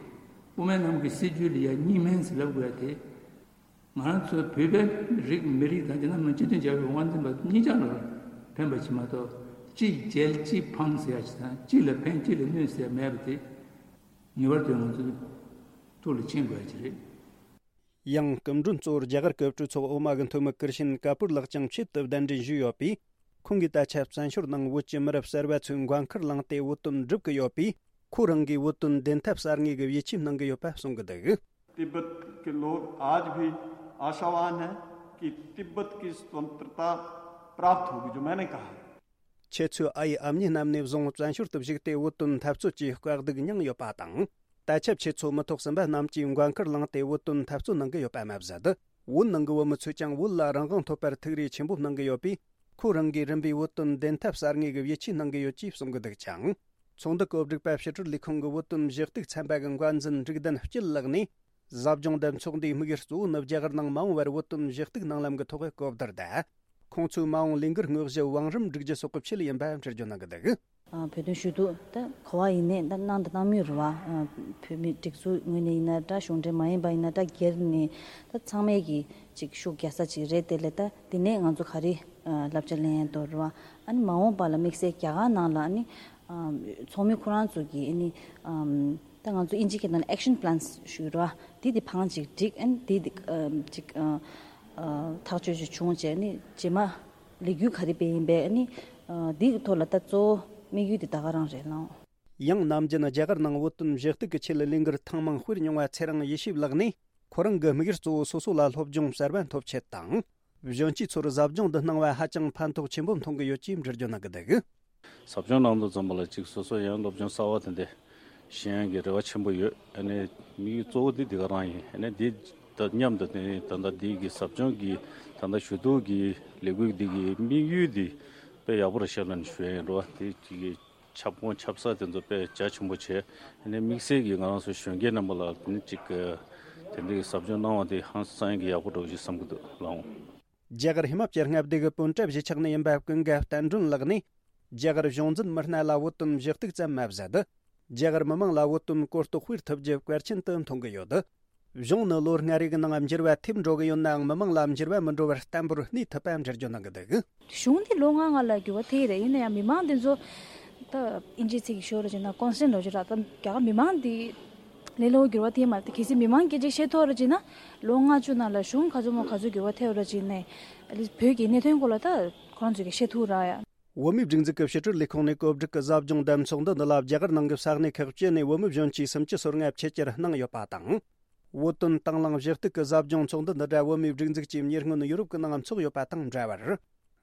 དབུ་མའི་ལམ་གྱི་སྲིད་བྱུས་ལ་ཡ་གཉིས་སྨན་ཟེར་ལབ་དགོས་ཡ་དེ། ང་རང་ཚོ་བོད་པའི་རིགས་མི་རིགས་དང་རྒྱ་ནག་མི་སྤྱི་མཐུན་རྒྱལ་ཁབ་དབང་འཛིན་པ་གཉིས་ཆར་ལ་ཕན་པ་ཞིག་མ་གཏོགས། གཅིག་རྒྱལ་གཅིག་ཕངས་ཟེར་ཡ་ཞིག་དང་། གཅིག་ལ་ཕན་གཅིག་ལ་གནོད་ཟེར་ཡ་མེད་པ་དེ་ངེས་པར་དུ་ང་ཚོའི་ཐུགས་ལ་མཁྱེན་དགོས་ཡ་ཅིག་རེད། ཡང་སྐུ་མགྲོན་གཙོ་བོར་རྒྱ་གར་གྱི་གྲོས་ཚོགས་འོག་མ་གི་འཐུས་མི་ཀིར་ཤིན་ཀ་པུར་ལགས་ཀྱང་ཆེད་དུ་གདན་འདྲེན་ཞུས་ཡོད་པས། ཁོང་གིས་ད་ཆ་བཙན་བྱོལ་ནང་བོད་ཀྱི་མི་རབས་གསར་པ་ཚོས་མགོན་ཁུར་བླངས་ཏེ་བོད་དོན་སྒྲུབ་ཀྱི་ཡོད་པས། ཁོ་རང་གིས་བོད་དོན་བདེན་མཐའ་གསར་རྙེད་ཀྱི་ཡིད་ཆེས་གནང་གི་ཡོད་པ་གསུང་གི་འདུག། तिब्बत के लोग आज भी आशावान हैं कि तिब्बत की स्वतंत्रता प्राप्त होगी, जो मैंने कहा है। ཁྱེད་ཚོའི་ཨ་ཡེ་ཨ་མྱེས་རྣམས་ནས་བཟུང་བཙན་བྱོལ་དུ་བཞུགས་ཏེ་བོད་དོན་འཐབ་རྩོད་ཀྱི་དཀའ་སྡུག་མྱངས་ཡོད་པ་དང་། ད་ཆ་ཁྱེད་ཚོ་མི་ཐོག་གསུམ་པ་རྣམས་ཀྱིས་མགོན་ཁུར་བླངས་ཏེ་བོད་དོན་འཐབ་རྩོད་གནང་གི་ཡོད་པ་མ་ཟད། བོད་ནང་གི་བོད་མི་ཚོས་ཀྱང་བོད་ལ་རང་དབང་ཐོབ་པར་ཐུགས་རེ་ཆེན་པོ་གནང་གི་ཡོད་པས། ཁོ་རང་གིས་རིམ་པས་བོད་དོན་བདེན་མཐའ་གསར་རྙེད་ཀྱི་ཡིད་ཆེས་གནང་གི་ཡོད་ཅེས་གསུང་གི་འདུག་ཅིང་། ཚོགས་འདུ་གོ་སྒྲིག་པ་ཕྱི་དྲིལ་ལས་ཁུངས་ཀྱི་བོད་དོན་ཞི་གཏུག་ཚན་པ་གི་འགོ་འཛིན་འབྲུག་ལྡན་སྐྱིད་ལགས་ནས། ཟབ་སྦྱོང་འདེམས་ཚོགས་འདིའི་དམིགས་ཡུལ་གཙོ་བོ་ནི་རྒྱ་གར་ནང་མ་འོངས་པར་བོད་དོན་ཞི་གཏུག་གནང་ལམ་གྱི་ཐོག་གི་གོ་བསྡུར་དང་། ཁོང་ཚོའི་མ་འོངས་ལས་འགུལ་དངོས་གཞི་བང་རིམ་སྒྲིག་རྒྱུ་སོགས་ཀྱི་ཆེད་ཡིན་པ་འགྲེལ་བརྗོད་གནང་གི་འདུག། ཨ། བོད་དོན་ཞུ་གཏུག་ད་ག་བ་ཡིན་ནའི་ད་གནང་དང་གནང་མུས་རེད་བ། ཨ། བོད་མི་སྒྲིག་འཛུགས་ངོས་ནས་ཡིན་ན་འདྲ། གཞུང་འབྲེལ་མ་ཡིན་པ་ཡིན་ན་འདྲ། སྒེར་ནས་ད་ཚང་མས་ཀྱི་ཅིག་ཤུགས་རྒྱག་ས་ཅིག་རེད། དེ་ལས་ད་དེ་ནས་ང་ཚོ་ག་རེ་ཨ་བསླབ་བྱ་ལེན་ཡ་འདུག་རེད་བ། ཨ་ནི་མ་འོངས་པ་ལ་དམིགས་བསལ་རྒྱ་གར་ནང་ལ་ཨ་ནི་ཨ་ཚོགས་མི་ཁོ་རང་ཚོ་གིས་ཨ་ནི་ཨ། ད་ང་ཚོ་ཨིན་ཇི་སྐད་ནང་ལ་action plans ཞུ་ར། དེ་དེ་བང་ཅིག་བསྒྲིགས། ཨ་ནི་དེ་དེ་ཨ་ཅིག་ཨ་ཨ་ཐག་གཅོད་ཅིག་བྱུང་བྱས། ཨ་ནི་རྗེས་མ་ལས་འགུལ་ག་རེ་སྤེལ་ཡིན་པས། ཨ་ནི་ཨ་དེ་གི་ཐོག་ལ་ད་གཙོ་བོ་དམིགས་ཡུལ་དེ་ད་ག་རང་རེད་ལགས། ཡང་ནམ་རྒྱུན་རྒྱ་གར་ནང་བོད་དོན་ཞི་གཏུག་གི་ཆེད་ལས་འགུལ་ཐེངས་མང་སྤེལ་མྱོང་བ་ཚེ་རིང་ཡེ་ཤེས་ལགས་ནས། ཁོ་རང་གི་དམིགས་ཡུལ་གཙོ་བོ་སོ་སོ་ལ་སློབ་སྦྱོང་གསར་པ་ཐོབ་ཆེད་དང་། གཞོན་སྐྱེས་ཚོར་ཟབ་སྦྱོང་འདི་གནང་བ་ཧ་ཅང་ཕན་ཐོགས་ཆེན་པོ་མཐོང་གི་ཡོད་ཅེས་འགྲེལ་བརྗོད་གནང་གི་འདུག། ཟབ་སྦྱོང་གནང་དུས་ཙམ་པ་ལ་ཅིག་སོ་སོ་ཡང་སློབ་སྦྱོང་གསར་བ་དེ་འདྲ་ཤེས་ཡོན་གྱི་རེ་བ་ཆེན་པོ་ཡོད། ཨ་ནི་དམིགས་ཡུལ་གཙོ་བོ་འདི་འདི་ག་རང་ཡིན། ཨ་ནི་འདི་དང་མཉམ་དུ་དེ་ནི་ད་ལྟ་འདི་གི་ཟབ་སྦྱོང་གི་ད་ལྟ་ཞུ་གཏུག་གི་ལས་འགུལ་འདི་གི་དམིགས་ཡུལ་འདི་དཔེ་ཡག་པོ་རེད་ཤག་ལབ་ནས་ཞུ་ཡ་ཡིན། རེད་བ། དེ་ཅིག་གི་ཁྱབ་ཁོངས་ཁྱབ་ས་དེ་ཚོ་དཔེ་རྒྱ་ཆེན་པོ་བྱས། ཨ་ནི་དམིགས་བསལ་གྱིས་ང་རང་ཚོ་གཞོན་སྐྱེས་རྣམ་པ་ལ་དེ་ནི་ཅིག་གི་དེ་འདྲའི་ཟབ་སྦྱོང་གནང་བ་དེ་ཧང་སང་གི་ཡག་པོ་འདྲ་བོ་ཞིག་བསམ་གྱི་འདུག་ལགས། རྒྱ་གར་ཧི་མ་ཅལ་མངའ་སྡེ་གི་པུན་ཀྲབ་གཞིས་ཆགས་ནས་ཡིན་པ་ཀུན་དགའ་བསྟན་སྒྲོན་ལགས་ནས། རྒྱ་གར་གཞུང་འཛིན་མི་སྣ་ལ་བོད་དོན་ཞུ་གཏུག་ཙམ་མ་ཟད། རྒྱ་གར་མི་མང་ལ་བོད་དོན་གོ་རྟོགས་སྤེལ་ཐུབ་རྒྱུ་གལ་ཆེན་དུ་མཐོང་གི་ཡོད། གཞུང་ནི་ལོ་ལྔ་རེ་གི་ནང་འགྱུར་བ་ཐེབས་འགྲོ་གི་ཡོད་ནའང་། མི་མང་ལ་འགྱུར་བ་མི་འགྲོ་བར་བརྟན་པོར་གནས་ཐུབ་པ་འགྲེལ་བརྗོད་གནང་གི་འདུག། གཞུང་འདི་ལོ་ལྔ་ལྔ་ལ་འགྱུར་བ་ཐེབས་རེད། ཡིན་ན་ཡང་མི་མང་འདི་ཚོ་ད་ཨིན་ཇིའི་ཚིག་གིས་ཤོད་ར་བྱས་ན་constant ལབ་ཀྱི་ར། ད་རྒྱ་གར་མི་མང་འདི་ལས་སླ་བོ་འགྱུར་བ་ཐེབས་མ་རེད། གལ་སྲིད་མི་མང་སྐད་ཆ་བཤད་ཐུབ་ར་བྱས་ན། ལོ་ལྔ་བཅུ་ནང་ལ་གཞུང་ག་ཚོད་མོ་ག་ཚོད་འགྱུར་བ་ཐེབས་ར་བྱས་ནས། ཨ་ལི་བོད་ཀྱི་གནད་དོན་སྐོར་ལ་ད་ཁོ་རང་ཚོས་ཀྱིས་བཤད་ཐུབ་ར་ཡ། བོད་མིའི་སྒྲིག་འཛུགས་ཀྱི་ཕྱི་དྲིལ་ལས་ཁུངས་ནས་གོ་སྒྲིག་གི་ཟབ་སྦྱོང་འདེམས་ཚོགས་འདུ་འདི་ལ་རྒྱ་གར་ནང་གི་ས་གནས་ཁག་བཅུ་ནས་བོད་མི་གཞོན་སྐྱེས་སུམ་ཅུ་སོ་ལྔ་ཆེད་བཅར་གནང་ཡོད་པ་དང་། བོད་དོན་དང་བླངས་ཞུ་གཏུག་གི་ཟབ་སྦྱོང་ཚོགས་འདུ་འདི་འདྲ་བོད་མིའི་སྒྲིག་འཛུགས་ཀྱིས་ཉེ་སྔོན་ཡུ་རོབ་ཀྱི་ནང་ཚོགས་ཡོད་པ་དང་འདྲ་བར།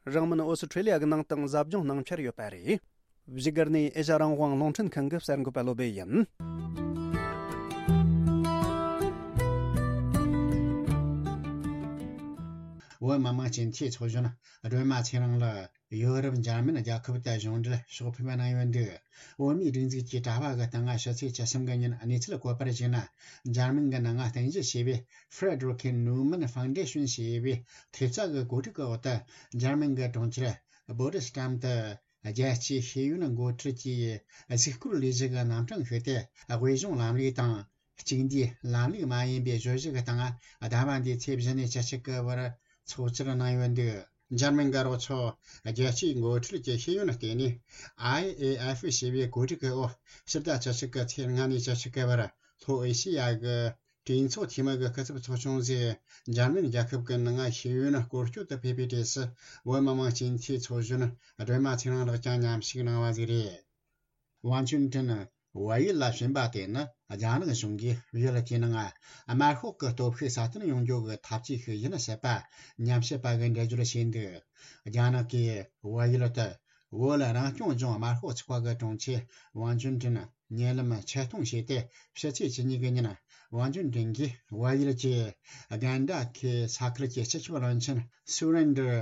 རིང་མིན་ཨོ་སི་ཁྲེ་ལི་ཡ་གི་ནང་དུའང་ཟབ་སྦྱོང་གནང་འཆར་ཡོད་པ་རེད། བཞུགས་སྒར་ནས་ཨེ་ཤ་རང་དབང་རླུང་འཕྲིན་ཁང་གི་གསར་འགོད་པ་བློ་བྷེ་ཡིན། བོད་མི་མང་སྤྱི་འཐུས་ཚོགས་གཞོན་སྒྲོལ་མ་ཚེ་རིང་ལགས་ཡོ་རོབ་འཇར་མན་རྒྱལ་ཁབ་ཏུ་གཞུང་འབྲེལ་ཕྱོགས་ཕེབས་གནང་ཡོད་འདུག་བོད་མིའི་སྒྲིག་འཛུགས་ཀྱི་དྲ་བ་གི་སྟེང་ཕྱི་ཚེས་བཅུ་གསུམ་གི་ཉིན་གནས་ཚུལ་བཀོད་པར་གཞིགས་ན། འཇར་མན་གྱི་ནང་རྟེན་གཞི་བྱས་པའི་Frederick Newman Foundation ཞེས་པའི་ཐེབས་རྩ་གི་གོ་སྒྲིག་གི་འོག་ཏུ། འཇར་མན་གྱི་གྲོང་ཁྱེར་Potsdam དུ། རྒྱལ་སྤྱིའི་ཤེས་ཡོན་འགོ་ཁྲིད་ཀྱི་གཟིགས་སྐོར་ལས་གཞི་གི་རྣམ་གྲངས་ཤིག་སྟེ། དབུས་གཞུང་ལམ་ལུགས་དང་། གཅིག་འདུས་ལམ་ལུགས་མ་ཡིན་པའི་བརྗོད་གཞི་གི་སྟེང་། ཟླ་བ་འདིའི་ཚེས་བཞི་ནས་བཅུ་གཅིག་གི་བར་ཚོགས་བཅར་གནང་ཡོད་འདུག་འཇར་མན་གྱི་རོགས་ཚོགས་རྒྱལ་སྤྱིའི་འགོ་ཁྲིད་ཀྱི་ཤེས་ཡོན་ལྟེ་གནས་I A F ཞེས་པའི་གོ་སྒྲིག་གི་འོག་ཕྱི་ཟླ་བཅུ་གཅིག་གི་ཚེས་ལྔ་ནས་བཅུ་གཅིག་གི་བར་ལྷོ་ཨེ་ཤེ་ཡ་གི་གྲོས་ཚོགས་འཐུས་མི་གི་སྐུ་ཚབ་ཚོགས་ཆུང་ཟེར། འཇར་མན་རྒྱལ་ཁབ་ཀྱི་ནང་ཤེས་ཡོན་སྐོར་སྐྱོད་དུ་ཕེབས་པའི་གྲས་སུ། བོད་མི་མང་སྤྱི་འཐུས་ཚོགས་གཞོན་སྒྲོལ་མ་ཚེ་རིང་ལགས་ཀྱང་མཉམ་ཞུགས་གནང་བ་ཟིག་རེད། ཝང་ཅུན་ཀྲིན་བལ་ཡུལ་ལ་ཕྱིན་པ་དེ་ནི། རྒྱ་ནག་གཞུང་གིས་ཡུལ་དེའི་ནང་དམར་ཤོག་གི་སྟོབས་ཤུགས་སྲ་བརྟན་ཡོང་རྒྱུ་གི་ཐབས་ཇུས་ཤིག་ཡིན་སྲིད་པ་ཉམས་ཞིབ་པ་གིས་འགྲེལ་བརྗོད་བྱས་འདུག་རྒྱ་ནག་གིས་བལ་ཡུལ་དུ། བོད་རང་སྐྱོང་ལྗོངས་དམར་ཤོག་ཚོགས་པ་གི་དྲུང་ཆེ་ཝང་ཅུན་ཀྲིན་ཉེ་ལམ་ཆེད་གཏོང་བྱས་ཏེ། ཕྱི་ཚེས་བཅུ་གཉིས་ཀྱི་ཉིན། ཝང་ཅུན་ཀྲིན་གྱིས་བལ་ཡུལ་གྱི་གན་ཌ་ཁའི་ས་ཁུལ་གྱི་སྤྱི་ཁྱབ་བློན་ཆེན་སུ་རེན་ཌར་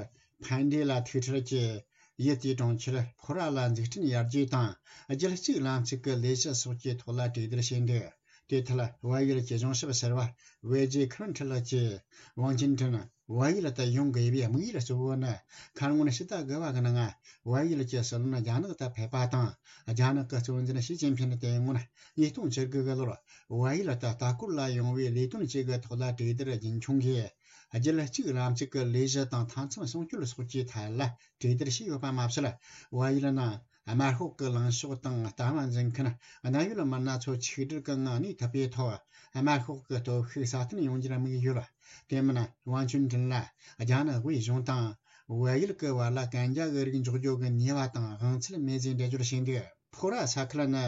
ཕན་ཌེ་ལ་ཐུག་འཕྲད་ཀྱིས། ཡུལ་དེའི་གྲོང་ཁྱེར་ཕོ་ར་ལ་འཛུགས་སྐྲུན་ཡར་རྒྱས་དང་། རྒྱུད་གཅིག་ལམ་གཅིག་གི་ལས་གཞི་སོགས་ཀྱི་ཐོག་ལ་གྲོས་བསྡུར་བྱས་འདུག་དེ་མཐར་བལ་ཡུལ་གྱི་གཞུང་ཞབས་ཟུར་པ་ཝེ་ཇེ་ཁུ་རན་ཁྲི་ལགས་ཀྱིས། ཝང་ཅུན་ཀྲིན་བལ་ཡུལ་དུ་ཡོང་དགོས་པའི་དམིགས་ཡུལ་གཙོ་བོ་ནི། ཁ་སྔོན་ཕྱི་ཟླ་དགུ་པ་གི་ནང་བལ་ཡུལ་གྱི་སྲིད་བློན་རྒྱ་ནག་ཏུ་ཕེབས་པ་དང་། རྒྱ་ནག་གི་གཙོ་འཛིན་ཞི་ཅིན་ཕིན་དེ་སྔོན་ཉིས་སྟོང་བཅུ་དགུ་གི་ལོར་བལ་ཡུལ་དུ་ལྟ་སྐོར་ལ་ཡོང་བའི་ལས་དོན་གཅིག་གི་ཐོག་ལ་གྲོས་བསྡུར་རྒྱུན་འཁྱོངས་ཀྱིས། རྒྱུད་གཅིག་ལམ་གཅིག་གི་ལས་གཞི་དང་མཐའ་མཚམས་སྲུང་སྐྱོབ་སོགས་ཀྱི་ཐད་ལ་གྲོས་བསྡུར་བྱས་ཡོད་པ་མ་ཟད། བལ་ཡུལ་ནང་དམར་ཤོག་གི་ལངས་ཕྱོགས་དང་ལྟ་བ་འཛིན་མཁན་གནད་ཡོད་མི་སྣ་ཚོ་ཆིག་སྒྲིལ་གྱི་ངང་གནས་ཐུབ་པའི་ཐོག་དམར་ཤོག་གི་སྟོབས་ཤུགས་སྲ་བརྟན་ཡོང་རྒྱུར་དམིགས་ཡོད། དེ་མིན་ཝང་ཅུན་ཀྲིན་ལ་རྒྱ་ནག་དབུས་གཞུང་དང་བལ་ཡུལ་གྱི་བར་ལ་གན་རྒྱ་གི་རིགས་འཇོག་རྒྱུ་གི་ཉེས་པ་དང་དབང་ཚད་མེད་ཅེས་འགྲེལ་བརྗོད་བྱས་འདུག་ཕོ་ར་ས་ཁུལ་ནི་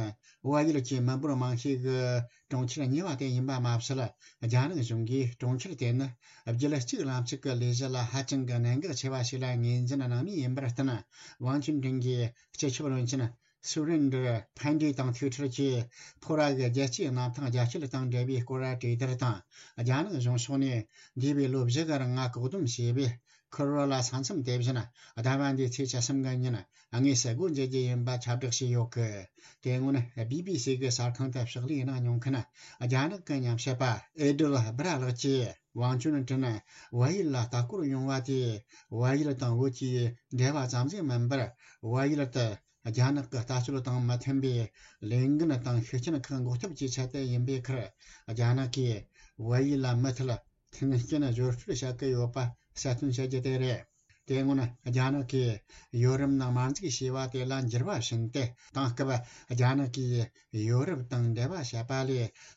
བལ་ཡུལ་གྱི་མི་འབོར་མང་ཤོས་ཀྱི་གྲོང་ཁྱེར་གཉིས་པ་དེ་ཡིན་པ་མ་ཟད། རྒྱ་ནག་གཞུང་གིས་གྲོང་ཁྱེར་དེ་ནི་རྒྱུད་གཅིག་ལམ་གཅིག་གི་ལས་གཞི་ལ་ཧ་ཅང་གི་གནད་འགག་ཆེ་བ་ཞིག་ལ་ངོས་འཛིན་གནང་མུས་ཡིན་པར་བརྟེན། ཝང་ཅུན་ཀྲིན་གྱིས་སྤྱི་ཁྱབ་བློན་ཆེན་སུ་རེན་ཌར་ཕན་ཌེ་དང་ཐུག་འཕྲད་ཀྱིས། ཕོ་ར་གི་རྒྱལ་སྤྱིའི་གནམ་ཐང་རྒྱ་སྐྱེད་དང་འབྲེལ་བའི་སྐོར་གྲོས་བསྡུར་དང་། རྒྱ་ནག་གཞུང་ཕྱོགས་ནས་འདས་པའི་ལོ་བཞི་གི་རིང་ང་བཀག་སྡོམ་བྱས་པའི་ཁུ་རོ་ལ་ས་མཚམས་དེ་བཞིན་ཟླ་བ་འདིའི་ཚེས་བཅུ་གསུམ་གི་ཉིན་དངོས་སུ་སྒོ་འབྱེད་རྒྱུ་ཡིན་པ་ཁྱབ་བསྒྲགས་བྱས་ཡོད་གི། དེ་སྔོན་བི་བི་སི་གི་གསར་ཁང་དུ་ཕྱག་ལས་གནང་མྱོང་མཁན་རྒྱ་ནག་གི་ཉམས་ཞིབ་པ་ཨེ་ཌལ་སྦི་ར་ལགས་ཀྱིས། ཝང་ཅུན་ཀྲིན་བལ་ཡུལ་ལ་ལྟ་སྐོར་ཡོང་བ་དེས་བལ་ཡུལ་དང་བོད་ཀྱི་འབྲེལ་བ་ཙམ་ཞིག་མིན་པར། བལ་ཡུལ་དུ་རྒྱ་ནག་གི་ལྟ་སྤྱོད་དང་མི་མཐུན་པའི་ལས་འགན་དང་ཤུགས་རྐྱེན་ཁག་འགོག་ཐབས་ཀྱི་ཆེད་དུ་ཡིན་པའི་ཁར། རྒྱ་ནག་གིས་བལ་ཡུལ་ལ་མུ་མཐུད་མཐུན་རྐྱེན་སྦྱོར་སྤྲོད་བྱ་གི་ཡོད་པ་གསལ་སྟོན་བྱ་རྒྱུ་དེ་རེད། དེ་སྔོན་རྒྱ་ནག་གིས་ཡོ་རོབ་ནང་དམར་འཛུགས་བྱས་པ་དེ་ལ་འགྱུར་བ་ཕྱིན་ཏེ། དེང་སྐབས་རྒྱ་ནག་གིས་ཡོ་རོབ་དང་འབྲེལ་བ་བྱེད་པ་ལས་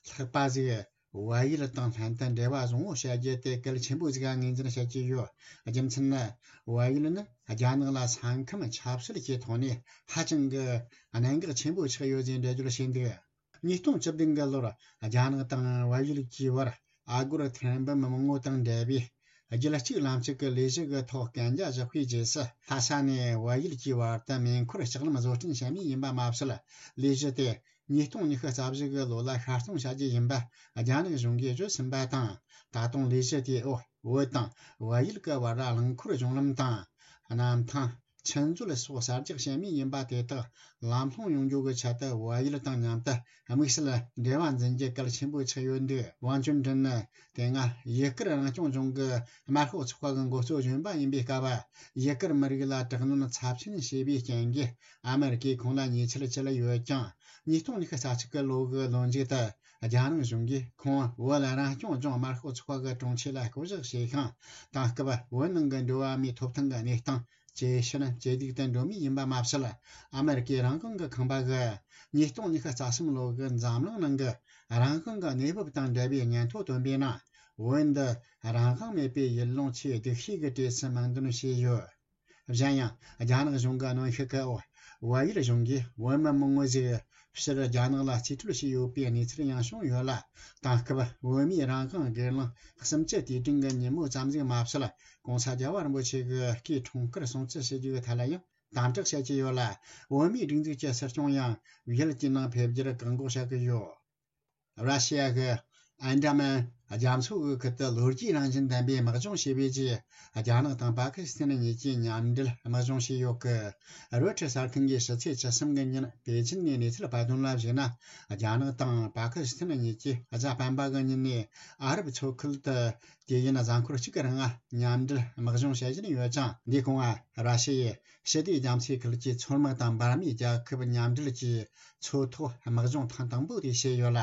ལྷག་པ་ཞིག་བལ་ཡུལ་དང་ལྷན་དུ་འབྲེལ་བ་བཟང་བོ་བྱ་རྒྱུ་དེ་གལ་ཆེན་པོ་ཞིག་ངོས་འཛིན་བྱེད་ཀྱི་ཡོད། རྒྱུ་མཚན་ནི། བལ་ཡུལ་ནི་རྒྱ་ནག་ལ་ས་ཁམས་ཆབ་སྲིད་ཀྱི་ཐོག་ནས་ཧ་ཅང་གི་གནད་འགག་ཆེན་པོ་ཆགས་ཡོད་ཅེས་འགྲེལ་བརྗོད་བྱས་འདུག་ཉིས་སྟོང་བཅུ་བདུན་གི་ལོར་རྒྱ་ནག་དང་བལ་ཡུལ་གྱི་བར་ཨ་སྒོར་ཐེར་འབུམ་མང་བོ་དང་འབྲེལ་བའི་རྒྱུད་གཅིག་ལམ་གཅིག་གི་ལས་གཞི་གི་ཐོག་གན་རྒྱ་བཞག་པའི་རྗེས་སུ། ལྷ་ས་ནས་བལ་ཡུལ་གྱི་བར་དུ་མེ་འཁོར་ལྕགས་ལམ་བཟོ་སྐྲུན་བྱ་མུས་ཡིན་པ་མ་ཟད། ལས་གཞི་དེ་ཉིས་སྟོང་ཉི་ཤུ་རྩ་བཞི་གི་ལོ་ལ་ཤར་གཏོང་བྱ་རྒྱུ་ཡིན་པ་རྒྱ་ནག་གཞུང་གིས་བརྗོད་ཟིན་པ་དང་། ད་དུང་ལས་གཞི་དེའི་འོག་བོད་དང་བལ་ཡུལ་གྱི་བར་རླངས་འཁོར་གཞུང་ལམ་དང་། གནམ་ཐང་། ཆུ་མཛོད་སོགས་གསར་རྒྱག་བྱེད་མུས་ཡིན་པ་དེ་དག་ལམ་ལྷོང་ཡོང་རྒྱུ་གི་ཆེད་དུ་བལ་ཡུལ་དང་མཉམ་དུ་དམིགས་བསལ་འབྲེལ་བ་འཛིན་རྒྱུ་གལ་ཆེན་པོ་ཆགས་ཡོད་འདུག་ཝང་ཅུན་ཀྲིན་ནི་དེ་སྔ་ཡུ་གུར་རང་སྐྱོང་ལྗོངས་ཀྱི་དམར་ཤོག་ཚོགས་པ་གི་འགོ་གཙོ་གཞོན་པ་ཡིན་པའི་སྐབས། ཡུ་གུར་མི་རིགས་ལ་དྲག་གནོན་ཚབས་ཆེན་བྱས་པའི་རྐྱེན་གྱིས་ཨ་མེ་རི་ཀས་ཁོང་ལ་ཉེས་ཆད་བཅད་ཡོད་ཀྱང་། ཉིས་སྟོང་ཉི་ཤུ་རྩ་གཅིག་གི་ལོ་གི་ལོ་མཇུག་ཏུ་རྒྱ་ནག་གཞུང་གིས་ཁོང་བོད་རང་སྐྱོང་ལྗོངས་དམར་ཤོག་ཚོགས་པ་གི་དྲུང་ཆེ་ལ་བསྐོ་གཞག་བྱས་ཤིང་། དེང་སྐབས་བོད་ནང་གི་འགྲོ་བ་མིའི་ཐོབ་ཐང་གི་གནས་སྟངས་ཇེ་ཞན་ཇེ་སྡུག་ཏུ་འགྲོ་མུས་ཡིན་པ་མ་ཟད། ཨ་མེ་རི་ཀའི་རང་དབང་གི་ཁང་པ་གིས་ཉིས་སྟོང་ཉི་ཤུ་རྩ་གསུམ་ལོ་གི་འཛམ་གླིང་ནང་གི་རང་དབང་གི་གནས་བབ་དང་འབྲེལ་བའི་སྙན་ཐོ་བཏོན་པའི་ནང་། བོད་འདི་རང་དབང་མེད་པའི་ཡུལ་ལུང་ཆེས་སྡུག་ཤོས་ཀྱི་གྲས་སུ་མིང་འདོན་བྱས་ཡོད། གཞན་ཡང་། རྒྱ་ནག་གཞུང་གི་གནོན་ཤུགས་ཀྱི་འོག་བལ་ཡུལ་གཞུང་གིས་བོད་མི་མང་བོ་ཞིག་ཕྱིར་རྒྱ་ནག་ལ་རྩིས་སྤྲོད་བྱས་ཡོད་པའི་གནས་ཚུལ་ཡང་བྱུང་ཡོད་ལ། དེང་སྐབས་བོད་མིའི་རང་དབང་སྒེར་ལངས་གསུམ་བཅུ་དུས་དྲན་གྱི་ཉིན་མོ་ཙམ་ཞིག་མ་ཟད། ྋགོང་ས་རྒྱལ་བ་རིན་པོ་ཆེ་གི་སྐུའི་འཁྲུངས་སྐར་སྲུང་བརྩི་ཞུ་རྒྱུའི་ཐད་ལ་ཡང་དམ་དྲག་བྱེད་ཀྱི་ཡོད་ལ། བོད་མིའི་སྒྲིག་འཛུགས་ཀྱི་སྲིད་སྐྱོང་ཡང་ཡུལ་དེའི་ནང་ཕེབས་རྒྱུར་བཀག་འགོག་བྱ་གི་ཡོད། ར་ཤི་ཡ་གི་ཨན་ཌ་མན་ རྒྱ་མཚོ་དབུས་ཁུལ་དུ་ལོ་རྒྱུས་རང་བཞིན་ལྡན་པའི་དམག་སྦྱོང་བྱས་པའི་རྗེས། རྒྱ་ནག་དང་པ་ཀི་སི་ཐན་གཉིས་ཀྱིས་མཉམ་འབྲེལ་དམག་སྦྱོང་བྱས་ཡོད་ཀི། རོའི་ཊར་གསར་ཁང་གིས་ཕྱི་ཚེས་བཅུ་གསུམ་གི་ཉིན་པེ་ཅིན་ནས་གནས་ཚུལ་སྤེལ་དོན་ལ་གཞིགས་ན། རྒྱ་ནག་དང་པ་ཀི་སི་ཐན་གཉིས་ཀྱིས་གཟའ་སྤེན་པ་གི་ཉིན་ནས་ཨ་རབ་མཚོ་ཁུལ་དུ་དུས་ཡུན་གཟའ་འཁོར་གཅིག་གི་རིང་མཉམ་འབྲེལ་དམག་སྦྱོང་བྱེད་བཞིན་ཡོད་ཅིང་། འདིའི་གོང་ར་ཤི་ཡས་ཞི་བདེ་རྒྱ་མཚོའི་ཁུལ་གྱི་མཚོ་དམག་དང་འབར་མའི་རྒྱལ་ཁབ་མཉམ་འབྲེལ་གྱིས་མཚོ་ཐོག་དམག་སྦྱོང་ཐེངས་དང་པོ་དེ་བྱས་ཡོད་ལ།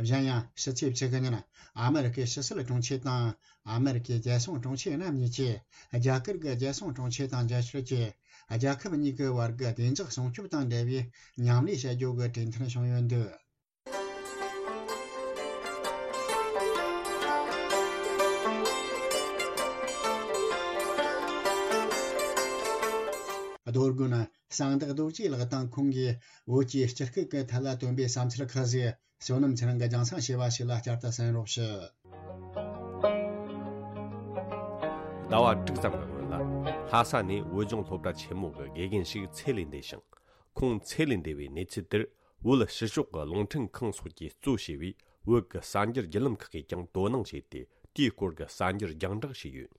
གཞན་ཡང་ཕྱི་ཚེས་བཅུ་གི་ཉིན་ཨ་མེ་རི་ཀའི་ཕྱི་སྲིད་དྲུང་ཆེ་དང་ཨ་མེ་རི་ཀའི་རྒྱལ་སྲུང་དྲུང་ཆེ་རྣམ་གཉིས་ཀྱིས་རྒྱ་གར་གྱི་རྒྱལ་སྲུང་དྲུང་ཆེ་དང་མཇལ་བསྡོམས་ཀྱིས། རྒྱལ་ཁབ་གཉིས་ཀྱི་བར་གྱི་བདེ་འཇགས་སྲུང་སྐྱོབ་དང་འབྲེལ་བའི་མཉམ་ལས་བྱ་རྒྱུ་གི་གྲོས་མཐུན་བྱུང་ཡོད་འདུག། རྡོ་དགོན་གསང་བདག་རྡོ་རྗེ་ལགས་དང་ཁོང་གིས་བོད་ཀྱི་སྤྱི་སྐད་ཀྱི་ཐད་ལ་བཏོན་པའི་བསམ་ཚུལ་ཁག་ཅིག་བསོད་ནམས་ཚེ་རིང་གིས་རྒྱང་སྲིང་བྱས་པ་ཞིག་ལ་བསྐྱར་དུ་གསན་རོགས་ཞུ། ཟླ་བ་དྲུག་ཙམ་གྱི་སྔོན་ལ། ལྷ་ས་ནས་བོད་ལྗོངས་སློབ་གྲྭ་ཆེན་མོ་གི་དགེ་རྒན་ཞིག་ཚེ་ལས་འདས་ཤིང་། ཁོང་ཚེ་ལས་འདས་པའི་གནས་ཚུལ་དེར། བོད་ཕྱི་ཕྱོགས་ཀྱི་རླུང་འཕྲིན་ཁང་སོགས་ཀྱིས་གཙོ་བྱས་པའི་བོད་ཀྱི་གསར་འགྱུར་བརྒྱུད་ལམ་ཁག་གིས་ཀྱང་དོ་སྣང་བྱས་ཏེ། དེའི་སྐོར་གྱི་གསར་འགྱུར་རྒྱང་བསྒྲགས་བྱས་ཡོད།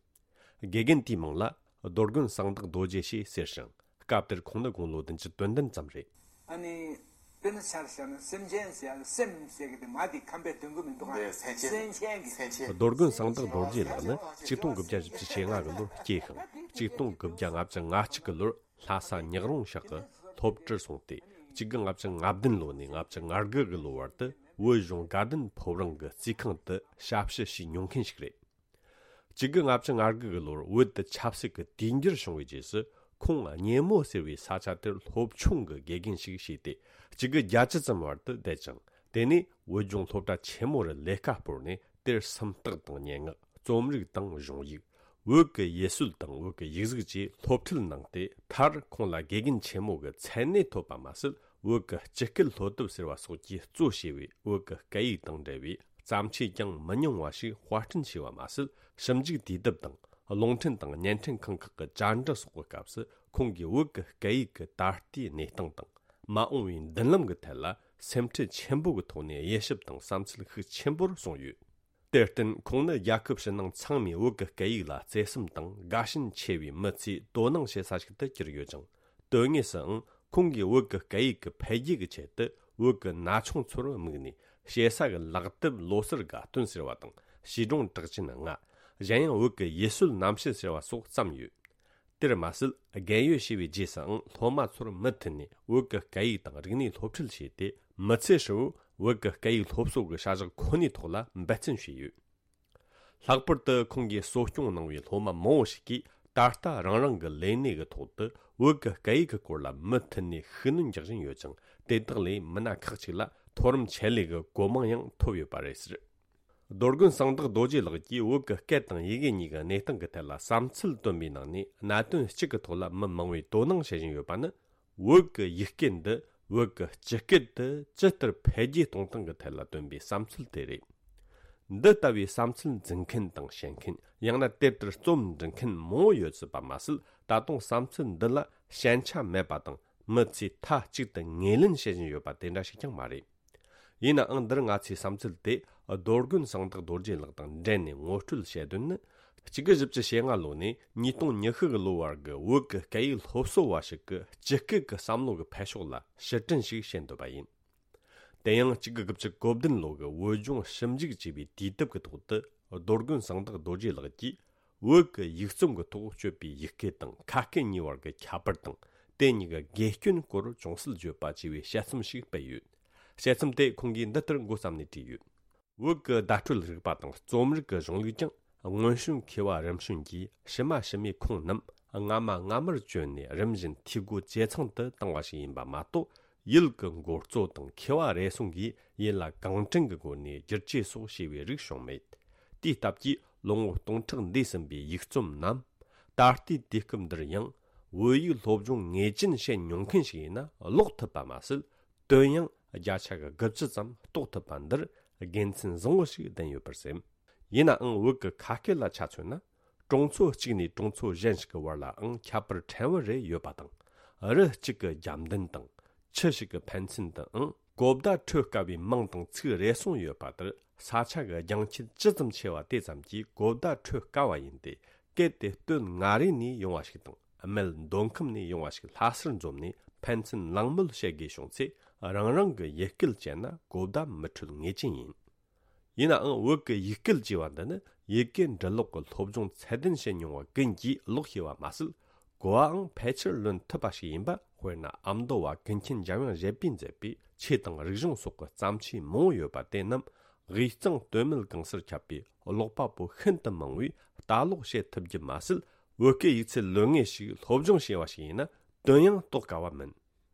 དགེ་རྒན་དེའི་མིང་ལ་རྡོ་དགོན་གསང་བདག་རྡོ་རྗེ་ཞེས་ཟེར་ཞིང་། སྐབས་དེར་ཁོང་ནི་དགུང་ལོ་བདུན་ཅུ་དོན་བདུན་ཙམ་རེད། ཨ་ནི། དཔེར་ན་ཆ་བཞག་ན་སེམས་ཅན་ཟེར་ཡ་ལ་སེམས་ཟེར་གི་དེ་མ་དེ་ཁམས་པའི་དོན་གོ་མི་འདུག་ཨ། འདི་སེམས་ཅན། སེམས་ཅན་གྱི། སེམས་ཅན། རྡོ་དགོན་གསང་བདག་རྡོ་རྗེ་ལགས་ནི་ཆིག་སྟོང་དགུ་བརྒྱ་བཞི་བཅུ་ཞེ་ལྔ་གི་ལོར་སྐྱེས་ཤིང་། ཆིག་སྟོང་དགུ་བརྒྱ་ལྔ་བཅུ་ང་གཅིག་གི་ལོར་ལྷ་ས་ཉག་རོང་ཤག་གི་སློབ་གྲྭར་སོང་སྟེ། ཆིག་དགུ་ལྔ་བཅུ་ང་བདུན་ལོ་ནས་ལྔ་བཅུ་ང་དགུ་གི་ལོ་བར་དུ་བོད་གཞུང་དགའ་ལྡན་ཕོ་བྲང་གི་རྩིས་ཁང་དུ་ཞབས་ཞུ་བྱས་མྱོང་མཁན་ཞིག་རེད། ཆིག་དགུ་ལྔ་བཅུ་ང་དགུ་གི་ལོར་བོད་དུ་ཆབ་སྲིད་ཀྱི་དུས་འགྱུར་བྱུང་བའི་རྗེས་སུ། ཁོང་གཉེར་མོ་ཟེར་བའི་ས་ཆ་དེར་སློབ་ཆུང་གི་དགེ་རྒན་ཞིག་བྱས་ཏེ། ཆིག་དགུ་བརྒྱད་ཅུ་ཙམ་བར་དུ་བསྡད་ཅིང་། དེ་ནས་བོད་ལྗོངས་སློབ་གྲྭ་ཆེན་མོ་རུ་ལས་ཀ་སྤོར་ནས་དེར་སུམ་རྟགས་དང་སྙན་ངག་རྩོམ་རིག་དང་གཞུང་ཡིག་བོད་ཀྱི་ཡུལ་སྲོལ་དང་བོད་ཀྱི་ཡིག་གཟུགས་བཅས་སློབ་ཁྲིད་གནང་སྟེ། མཐར་ཁོང་ལ་དགེ་རྒན་ཆེན་མོ་གི་མཚན་གནས་ཐོབ་པ་མ་ཟད། བོད་ཀྱི་སྤྱི་སྐད་སློབ་དེབ་ཟེར་བ་སོགས་ཀྱིས་གཙོ་བྱས་པའི་བོད་ཀྱི་སྐད་ཡིག་དང་འབྲེལ་བའི་བརྩམས་ཆོས་ཀྱང་མི་ཉུང་བ་ཞིག་དཔར་སྐྲུན་བྱས་པ་མ་ཟད། ཞིབ་འཇུག་དུས་དེབ་དང་། རླུང་འཕྲིན་དང་བརྙན་འཕྲིན་ཁང་ཁག་གི་བཅར་འདྲི་སོགས་ཀྱི་སྐབས་སུ། ཁོང་གིས་བོད་ཀྱི་སྐད་ཡིག་གི་ད་ལྟའི་གནས་སྟངས་དང་། མ་འོངས་པའི་མདུན་ལམ་གྱི་ཐད་ལ་སེམས་ཁྲལ་ཆེན་པོ་གི་ཐོག་ནས་དབྱེ་ཞིབ་དང་བསམ་ཚུལ་ཤུགས་ཆེན་པོར་གསུངས་ཡོད། དེར་བརྟེན། ཁོང་ནི་རྒྱལ་ཁབ་ཕྱི་ནང་ཚང་མས་བོད་ཀྱི་སྐད་ཡིག་ལ་བརྩེ་སེམས་དང་དགའ་ཞེན་ཆེ་བའི་མི་ཚོས་དོ་སྣང་བྱེད་ས་ཞིག་ཏུ་གྱུར་ཡོད་ཅིང་། དོན་དངོས་སུའང་ཁོང་གིས་བོད་ཀྱི་སྐད་ཡིག་གི་འཕེལ་རྒྱས་ཀྱི་ཆེད་དུ། བོད་ཀྱི་ན་ཆུང་ཚོར་དམིགས་ནས། ཞེ་ས་གི་ལག་དེབ་ལོ་སར་དགའ་སྟོན་ཟེར་བ་དང་། བྱིས་སྒྲུང་གྲགས་ཅན་ལྔ། གཞན་ཡང་བོད་ཀྱི་ཡུལ་སྲོལ་རྣམ་བཤད་ཟེར་བ་སོགས་བརྩམས་ཡོད། དེར་མ་ཟད། རྒན་ཡོལ་བྱས་པའི་རྗེས་སུའང་སློབ་མ་ཚོར་མུ་མཐུད་ནས་བོད་ཀྱི་སྐད་ཡིག་དང་རིག་གནས་སློབ་ཁྲིད་བྱས་ཏེ། མི་ཚེ་ཧྲིལ་བོར་བོད་ཀྱི་སྐད་ཡིག་སློབ་གསོ་གི་བྱ་གཞག་ཁོ་ནའི་ཐོག་ལ་འབད་བརྩོན་བྱས་ཡོད། ལྷག་པར་དུ་ཁོང་གིས་གསོ་སྐྱོང་གནང་བའི་སློབ་མ་མང་བོ་ཞིག་གིས་ད་ལྟ་རང་རང་གི་ལས་གནས་ཀྱི་ཐོག་ཏུ་བོད་ཀྱི་སྐད་ཡིག་གི་སྐོར་ལ་མུ་མཐུད་ནས་ཤུགས་སྣོན་རྒྱག་བཞིན་ཡོད་ཅིང་། དེ་དག་ལས་མི་སྣ་ཁག་ཅིག་ལ་མཐོ་རིམ་ཆེད་ལས་ཀྱི་གོ་མིང་ཡང་ཐོབ་ཡོད་པ་རེད་ཟེར། རྡོ་དགོན་གསང་བདག་རྡོ་རྗེ་ལགས་ཀྱིས་བོད་ཀྱི་སྐད་དང་ཡི་གེ་གཉིས་ཀྱི་གནས་སྟངས་ཀྱི་ཐད་ལ་བསམ་ཚུལ་བཏོན་པའི་ནང་ནས། གནད་དོན་གཅིག་གི་ཐོག་ལ་མི་མང་བོས་དོ་སྣང་བྱེད་བཞིན་ཡོད་པ་ནི། བོད་ཀྱི་ཡིག་སྐད་འདི་བོད་ཀྱི་སྤྱི་སྐད་དུ་ཇི་ལྟར་འཕེལ་རྒྱས་གཏོང་སྟངས་ཀྱི་ཐད་ལ་བཏོན་པའི་བསམ་ཚུལ་དེ་རེད། འདི་ལྟ་བུའི་བསམ་ཚུལ་འཛིན་མཁན་དང་བཤད་མཁན། ཡང་ན་དེ་ལྟར་རྩོམ་འབྲི་མཁན་མང་བོ་ཡོད་སྲིད་པ་མ་ཟད། ད་དུང་བསམ་ཚུལ་འདི་ལ་ཞན་ཆ་མེད་པ་དང་། མི་ཚོས་མཐའ་གཅིག་ཏུ་ངོས་ལེན་བྱེད་བཞིན་ཡོད་པ་དེ་འདྲ་ཞིག་ཀྱང་མ་རེད། ཡིན་ནའང་། འདིར་ང་ཚོས་བསམ་ཚུལ་དེ་རྡོ་དགོན་གསང་བདག་རྡོ་རྗེ་ལགས་དང་འབྲེལ་ནས་ངོ་སྤྲོད་བྱེད་དོན་ནི། གཅིག་དགུ་བཞི་བཅུ་ཞེ་ལྔ་ལོ་ནས་ཉིས་སྟོང་ཉི་ཤུ་གི་ལོ་བར་གྱི་བོད་ཀྱི་སྐད་ཡིག་སློབ་གསོ་བ་ཞིག་གི་སྤྱི་སྐད་ཀྱི་བསམ་བློ་གི་འཕེལ་ཕྱོགས་ལ་ཕྱིར་དྲན་ཞིག་བྱེད་འདོད་པ་ཡིན། དེ་ཡང་གཅིག་དགུ་དགུ་བཅུ་གོ་བདུན་ལོ་གི་བོད་ལྗོངས་ཞིབ་འཇུག་ཅེས་པའི་དུས་དེབ་ཀྱི་ཐོག་ཏུ། རྡོ་དགོན་གསང་བདག་རྡོ་རྗེ་ལགས་ཀྱིས། བོད་ཀྱི་ཡིག་རྩོམ་གྱི་ཐོག་སྤྱོད་པའི་ཡིག་སྐད་དང་ཁ་སྐད་གཉིས་བར་གྱི་ཁྱད་པར་དང་། དེ་གཉིས་ཀྱི་དགེ་སྐྱོན་སྐོར་ཅུང་ཟད་བརྗོད་པ་ཅེས་པའི་དཔྱད་རྩོམ་ཞིག་སྤེལ་ཡོད། དཔྱད་རྩོམ་དེ་ཁོང་གིས་འདི་ལྟར་འགོ་བརྩམས་ནས་བྲིས་ཡོད། བོད་ཀྱི་བརྡ་སྤྲོད་རིག་པ་དང་རྩོམ་རིག་གི་གཞུང་ལུགས་ཀྱང་། སྔོན་བྱོན་མཁས་པ་རིམ་བྱོན་གྱིས་ཕྱི་མ་ཕྱི་མའི་ཁུངས་རྣམས་སྔ་མ་སྔ་མར་བཅོལ་ནས། རིམ་བཞིན་འཐུས་སྒོ་ཇེ་ཚང་དུ་བཏང་བ་ཞིག་ཡིན་པ་མ་གཏོགས། ཡུལ་གྱི་འགོ་གཙོ་དང་མཁས་པ་རེ་ཟུང་གིས་ཡུལ་ལ་གང་དྲན་གྱི་སྒོ་ནས་བསྒྱུར་བཅོས་སོགས་བྱས་པའི་རིགས་བྱུང་མེད། དེའི་སྟབས་ཀྱིས་ལོ་ངོ་སྟོང་ཕྲག་འདས་ཟིན་པའི་ཡིག་རྩོམ་རྣམས། ད་ལྟའི་དུས་སྐབས་འདིར་ཡང་བོད་ཡིག་སློབ་སྦྱོང་ངེས་ཅན་བྱེད་མྱོང་མཁན་ཞིག་ཡིན་ན་ཀློག་ཐུབ་པ་མ་ཟད། དོན་ཡང་བརྒྱ་ཆ་གི་དགུ་བཅུ་ཙམ་རྟོགས་ཐུབ་པ་འདིར་དགེ་མཚན་བཟང་བོ་ཞིག་ལྡན་ཡོད་པར་སེམས། ཡིན་ནའང་། བོད་ཀྱི་ཁ་སྐད་ལ་ཆ་མཚོན་ན། གྲོང་ཚོ་གཅིག་ནས་གྲོང་ཚོ་གཞན་ཞིག་གི་བར་ལའང་ཁྱད་པར་ཕྲན་བུ་རེ་ཡོད་པ་དང་། རི་གཅིག་གི་རྒྱབ་མདུན་དང་། ཆུ་ཞིག་གི་ཕན་ཚུན་དུའང་གོ་བརྡ་འཕྲོད་དཀའ་བའི་མིང་དང་ཚིག་རེ་ཟུང་ཡོད་པ་ལྟར། ས་ཆ་གི་རྒྱང་ཆད་ཅི་ཙམ་ཆེ་བ་དེ་ཙམ་གྱིས་གོ་བརྡ་འཕྲོད་དཀའ་བ་ཡིན་ཏེ། གལ་ཏེ་སྟོད་མངའ་རིས་ནས་ཡོང་བ་ཞིག་དང་སྨད་མདོ་ཁམས་ནས་ཡོང་བ་ཞིག་ལྷ་སར་འཛོམས་ནས་ཕན་ཚུན་གླེང་མོལ་བྱེད་དགོས་བྱུང་ཚེ། རང་རང་གི་ཡུལ་སྐད་བཅས་ན་གོ་བརྡ་མི་འཕྲོད་ངེས་ཅན་ཡིན། ཡིན་ནའང་བོད་ཀྱི་ཡིག་སྐད་ཅེས་པ་འདི་ནི་ཡི་གེ་འབྲི་ཀློག་གི་སློབ་སྦྱོང་ཚད་ལྡན་བྱེད་མྱོང་བ་ཀུན་གྱིས་ཀློག་ཤེས་པ་མ་ཟད། གོ་བའང་ཕལ་ཆེར་ལོན་ཐུབ་པ་ཞིག་ཡིན་པ། དཔེར་ན་ཨ་མདོ་བ་ཀུན་མཁྱེན་འཇམ་དབྱངས་བཞད་པས་མཛད་པའི་ཆོས་དང་རིག་གཞུང་སོགས་ཀྱི་བརྩམས་ཆོས་མང་པོ་ཡོད་པ་དེ་རྣམས་དབུས་གཙང་སྟོད་སྨད་གང་སར་ཁྱབ་པའི་ཀློག་པ་པོ་ཤིན་ཏུ་མང་བས་ལྟ་ཀློག་བྱེད་ཐུབ་རྒྱུ་མ་ཟད། བོད་སྐད་ཡིག་ཚད་ལོན་ངེས་ཤིག་སློབ་སྦྱོང་བྱས་པ་ཞིག་ཡིན་ན་དོན་ཡང་རྟོགས་དཀའ་བ་མིན།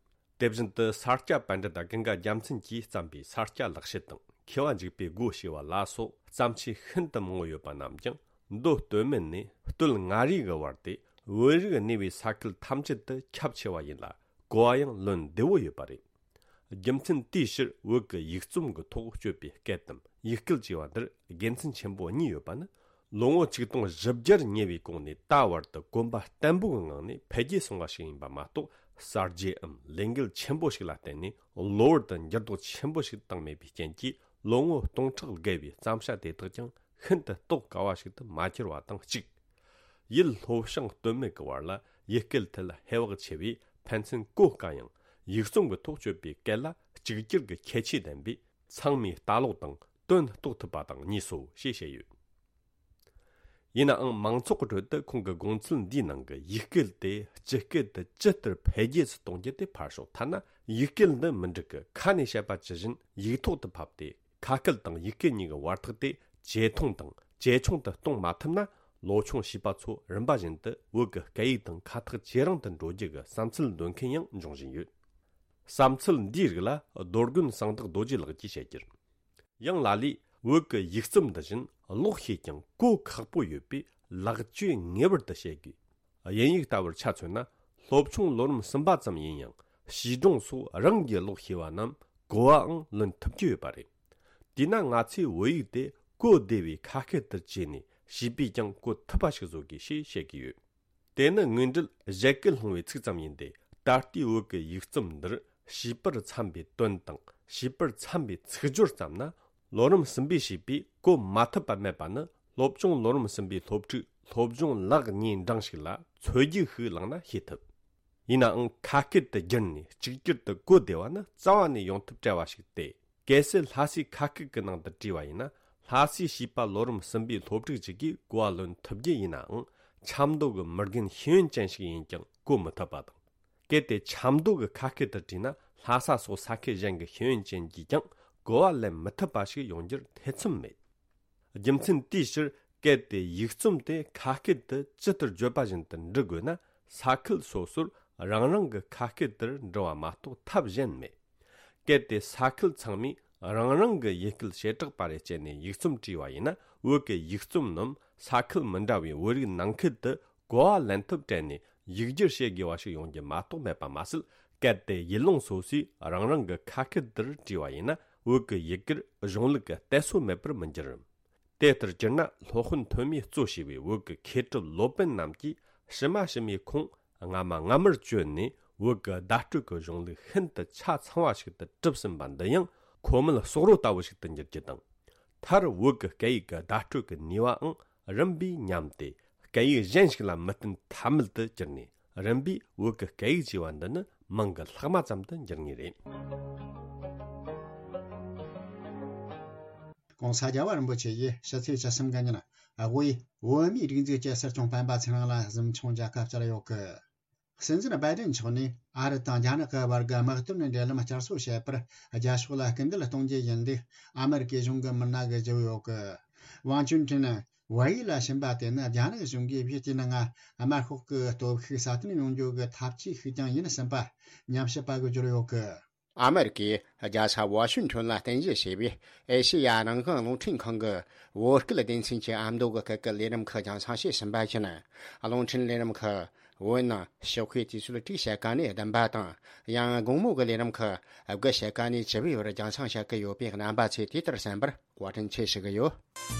དེ་བཞིན་དུ་ས་སྐྱ་པཎྜི་ཏ་ཀུན་དགའ་རྒྱལ་མཚན་གྱིས་བརྩམས་པའི་ས་སྐྱ་ལེགས་བཤད་དང་མཁས་པ་འཇིགས་པའི་སྒོ་ཞེས་པ་ལ་སོགས་བརྩམས་ཆོས་ཤིན་ཏུ་མང་པོ་ཡོད་པ་རྣམས་ཀྱང་མདོ་སྟོད་སྨད་ནས་སྟོད་མངའ་རིས་ཀྱི་བར་དེ་བོད་རིགས་གནས་པའི་ས་ཁུལ་ཐམས་ཅད་དུ་ཁྱབ་ཆེ་བ་ཡིན་ལ། གོ་བ་ཡང་ལོན་བདེ་བོ་ཡོད་པ་རེད། རྒྱུ་མཚན་དེའི་ཕྱིར་བོད་ཀྱི་ཡིག་རྩོམ་གྱི་ཐོག་སྤྱོད་པའི་སྐད་དམ་ཡིག་སྐད་ཅེས་པ་འདིར་དགེ་མཚན་ཆེན་པོ་གཉིས་ཡོད་པ་ནི། ལོ་ངོ་ཆིག་སྟོང་བཞི་བརྒྱར་ཉེ་བའི་གོང་ནས་ད་བར་དུ་གོམ་པ་བརྟན་པོའི་ངང་ནས་འཕེལ་རྒྱས་སོང་བ་ཞིག་ཡིན་པ་མ་གཏོགས། གསར་བརྗེའམ་ལས་འགུལ་ཆེན་པོ་ཞིག་ལ་བརྟེན་ནས་གློ་བུར་དུ་འགྱུར་ལྡོག་ཆེན་པོ་ཞིག་བཏང་མེད་པའི་རྐྱེན་གྱིས། ལོ་ངོ་སྟོང་ཕྲག་བརྒལ་བའི་བརྩམས་བྱ་དེ་དག་ཀྱང་ཤིན་ཏུ་རྟོགས་དཀའ་བ་ཞིག་ཏུ་མ་གྱུར་བ་དང་གཅིག་ཡུལ་ལྷོ་བྱང་སྟོད་སྨད་ཀྱི་བར་ལ་ཡུལ་སྐད་ཐད་ལ་ཧེ་བག་ཆེ་བས་ཕན་ཚུན་གོ་དཀའ་ཡང་། ཡིག་རྩོམ་གྱི་ཐོག་སྤྱོད་པའི་སྐད་ལ་གཅིག་གྱུར་གྱི་ཁྱད་ཆོས་ལྡན་པས། ཚང་མས་ལྟ་ཀློག་དང་དོན་རྟོགས་ཐུབ་པ་དང་གཉིས་སོ་ཞེས་བཤད་ཡོད། ཡིན་ནའང་མང་ཚོགས་ཀྱི་ཁྲོད་དུ་ཁོང་གི་དགོངས་ཚུལ་འདིའི་ནང་གི་ཡིག་སྐད་དེ་སྤྱི་སྐད་དུ་ཇི་ལྟར་འཕེལ་རྒྱས་སུ་གཏོང་རྒྱུ་དེ་ཕར་ཞོག་ཐ་ན་ཡིག་སྐད་འདི་མི་འགྲིག་གི་ཁ་ནས་བཤད་པ་ཇི་བཞིན་ཡིག་ཐོག་ཏུ་ཕབ་སྟེ། ཁ་སྐད་དང་ཡིག་སྐད་གཉིས་ཀྱི་བར་ཐག་དེ་ཇེ་ཐུང་དང་ཇེ་ཆུང་དུ་གཏོང་མ་ཐུབ་ན། ལོ་ཆུང་བྱིས་པ་ཚོ་རིམ་པ་བཞིན་དུ་བོད་ཀྱི་སྐད་ཡིག་དང་ཁ་ཐག་ཇེ་རིང་དུ་འགྲོ་རྒྱུ་གི་བསམ་ཚུལ་འདོན་མཁན་ཡང་འབྱུང་བཞིན་ཡོད། བསམ་ཚུལ་འདིའི་རིགས་ལ་རྡོ་དགོན་གསང་བདག་རྡོ་རྗེ་ལགས་ཀྱིས་བཤད་རྒྱུར། ཡང་ལ་ལས་བོད་ཀྱི་ཡིག་རྩོམ་འདི་བཞིན་ཀློག་ཤེས་ཀྱང་གོ་ཁག་པོ་ཡོད་པས་ལེགས་བཅོས་ངེས་པར་དུ་བྱེད་དགོས། དབྱིན་ཡིག་ལྟ་བུར་ཆ་མཚོན་ན། སློབ་ཆུང་ལོ་རིམ་གསུམ་པ་ཙམ་ཡིན་ཡང་བྱིས་སྒྲུང་སོགས་རང་གིས་ཀློག་ཤེས་པ་རྣམས་གོ་བའང་ལོན་ཐུབ་ཀྱི་ཡོད་པ་རེད། དེས་ན་ང་ཚོས་བོད་ཡིག་དེ་གོ་བདེ་བའི་ཁ་སྐད་དུ་བཅོས་ནས་བྱིས་པས་ཀྱང་གོ་ཐུབ་པ་ཞིག་བཟོ་དགོས་ཞེས་བཤད་ཀྱི་ཡོད། དེ་ནི་དངོས་འབྲེལ་བཞད་གད་སློང་བའི་ཚིག་ཙམ་ཡིན་ཏེ། ད་ལྟའི་བོད་ཀྱི་ཡིག་རྩོམ་འདིར་བྱིས་པར་འཚམ་པའི་དོན་དང་བྱིས་པར་འཚམ་པའི་ཚིག་སྦྱོར་བརྩམས་ན། ལོ་རིམ་གསུམ་པའི་བྱིས་པས་གོ་མ་ཐུབ་པ་མེད་པ་ནི། སློབ་ཆུང་ལོ་རིམ་གསུམ་པའི་སློབ་ཕྲུག་སློབ་སྦྱོང་ལེགས་ཉེས་འབྲིང་ཞིག་ལ་ཚོད་རྒྱུགས་ཤིག་བླངས་ན་ཤེས་ཐུབ། ཡིན་ནའང་ཁ་སྐད་དུ་བསྒྱུར་ནས་གཅིག་གྱུར་དུ་གོ་བདེ་བ་ནི་རྩ་བ་ནས་ཡོང་ཐབས་བྲལ་བ་ཞིག་སྟེ། གལ་སྲིད་ལྷ་སའི་ཁ་སྐད་ཀྱི་ནང་དུ་བྲིས་པ་ཡིན་ན། ལྷ་སའི་བྱིས་པ་ལོ་རིམ་གསུམ་པའི་སློབ་ཕྲུག་ཅིག་གིས་གོ་བ་ལོན་ཐུབ་རྒྱུ་ཡིན་ནའང་། ཆབ་མདོ་གི་མི་རྒན་ཤེས་ཡོན་ཅན་ཞིག་ཡིན་ཀྱང་གོ་མི་ཐུབ་པ་དང་། གལ་ཏེ་ཆབ་མདོ་གི་ཁ་སྐད་དུ་བྲིས་ན། ལྷ་ས་སོགས་ས་ཁུལ་གཞན་གྱི་ཤེས་ཡོན་ཅན་གྱིས་ཀྱང་གོ་བ་ལེན་མི་ཐུབ་པ་ཞིག་ཡོང་རྒྱུར་ཐེ་ཚོམ་མེད། རྒྱུ་མཚན་དེའི་ཕྱིར། གལ་ཏེ་ཡིག་རྩོམ་དེ་ཁ་སྐད་དུ་ཇི་ལྟར་བརྗོད་པ་བཞིན་དུ་འབྲི་དགོས་ན། ས་ཁུལ་སོ་སོར་རང་རང་གི་ཁ་སྐད་དེར་འབྲི་བ་མ་གཏོགས་ཐབས་གཞན་མེད། གལ་ཏེ་ས་ཁུལ་ཚང་མས་རང་རང་གི་ཡུལ་སྐད་བྱེ་བྲག་པ་རེ་སྤྱད་ནས་ཡིག་རྩོམ་བྲིས་པ་ཡིན་ན། བོད་ཀྱི་ཡིག་རྩོམ་རྣམས་ས་ཁུལ་མི་འདྲ་བའི་བོད་རིགས་ནང་ཁུལ་དུ་གོ་བ་ལེན་ཐབས་བྲལ་ནས་ཡིག་སྒྱུར་བྱེད་དགོས་པ་ཞིག་ཡོང་རྒྱུ་མ་གཏོགས་མེད་པ་མ་ཟད། གལ་ཏེ་ཡུལ་ལུང་སོ་སོས་རང་རང་གི་ཁ་སྐད་དེར་བྲིས་པ་ཡིན་ན། བོད་ཀྱི་ཡི་གེར་གཞུང་ལུགས་ཀྱི་གཏད་སོ་མེད་པར་མི་འགྱུར། དེ་ལྟར་གྱུར་ན། སློབ་དཔོན་ཐོན་མིས་གཙོ་བྱས་པའི་བོད་ཀྱི་མཁས་གྲུབ་སློབ་དཔོན་རྣམས་ཀྱིས་ཕྱི་མ་ཕྱི་མའི་ཁོངས་སྔ་མ་སྔ་མར་བཅོལ་ནས། བོད་ཀྱི་བརྡ་སྤྲོད་ཀྱི་གཞུང་ལུགས་ཤིན་ཏུ་ཆ་ཚང་བ་ཞིག་ཏུ་གྲུབ་ཟིན་པ་འདི་ཡང་ཁོ་མོ་ལ་སོག་རོ་ལྟ་བུ་ཞིག་ཏུ་འགྱུར་རྒྱུ་དང་། མཐར་བོད་ཀྱི་སྐད་ཡིག་གི་བརྡ་སྤྲོད་ཀྱི་ནུས་པའང་རིམ་པས་ཉམས་ཏེ། སྐད་ཡིག་གཞན་ཞིག་ལ་མི་བརྟེན་ཐབས་མེད་དུ་གྱུར་ནས། རིམ་པས་བོད་ཀྱི་སྐད་ཡིག་ཅེས་པ་འདི་ནི་མིང་གི་ལྷག་མ་ཙམ་དུ་འགྱུར་ངེས་རེད། ༸གོང་ས་རྒྱལ་བ་རིན་པོ་ཆེ་ཡིས་ཕྱི་ཚེས་བཅུ་གསུམ་གི་ཉིན་དབུས་བོད་མིའི་སྒྲིག་འཛུགས་ཀྱི་སྲིད་སྐྱོང་སྤེན་པ་ཚེ་རིང་ལ་གཟིམ་ཆུང་མཇལ་ཁ་བཅར་ཡོད་གི། སྲིད་འཛིན་བྷའི་ཌེན་མཆོག་ནས་ཨ་རི་དང་རྒྱ་ནག་གི་བར་གྱི་དམག་དོན་འབྲེལ་ལམ་བསྐྱར་གསོ་བྱེད་པར་རྒྱ་ཕྱོགས་ལ་སྐུལ་འདེད་གཏོང་རྒྱུ་ཡིན་ལུགས་ཨ་མེ་རི་ཀའི་གཞུང་གི་མི་སྣ་གིས་བརྗོད་ཡོད་གི། ཝང་ཅུན་ཀྲེང་ཝེ་ཡི་ལ་ཕྱིན་པ་དེ་ནི་རྒྱ་ནག་གཞུང་གིས་བཞི་བཅུ་ནང་དམར་ཤོག་གི་སྟོབས་ཤུགས་སྲ་བརྟན་ཡོང་རྒྱུ་གི་ཐབས་ཇུས་ཤིག་ཀྱང་ཡིན་ཟིན་པ་ཉམས་ཞིབ་པ་གིས་བརྗོད་ཡོད་གི། ཨ་མེ་རི་ཀའི་རྒྱལ་ས་ཝ་ཤིང་ཊོན་ལ་རྟེན་གཞི་བྱས་པའི་ཨེ་ཤེ་ཡ་རང་དབང་རླུང་འཕྲིན་ཁང་གི་བོད་སྐད་སྡེ་ཚན་གྱི་ཨ་མདོ་གི་སྐད་ཀྱི་ལས་རིམ་ཁག་རྒྱང་སྲིང་བྱས་ཟིན་པ་བཞིན། རླུང་འཕྲིན་ལས་རིམ་ཁག་བོད་ནང་ཕྱོགས་ཁའི་དུས་ཚོད་དྲུག་ཕྱེད་ཀ་ནས་བདུན་པ་དང་། ཡང་དགོང་མོ་གི་ལས་རིམ་ཁག་དགུ་ཕྱེད་ཀ་ནས་བཅུ་པའི་བར་རྒྱང་སྲིང་བྱེད་ཀྱི་ཡོད་པའི་རྣམ་པ་ཚོས་དེ་ལྟར་གསན་པར་བཀའ་དྲིན་ཆེ་ཞུ་གི་ཡོད།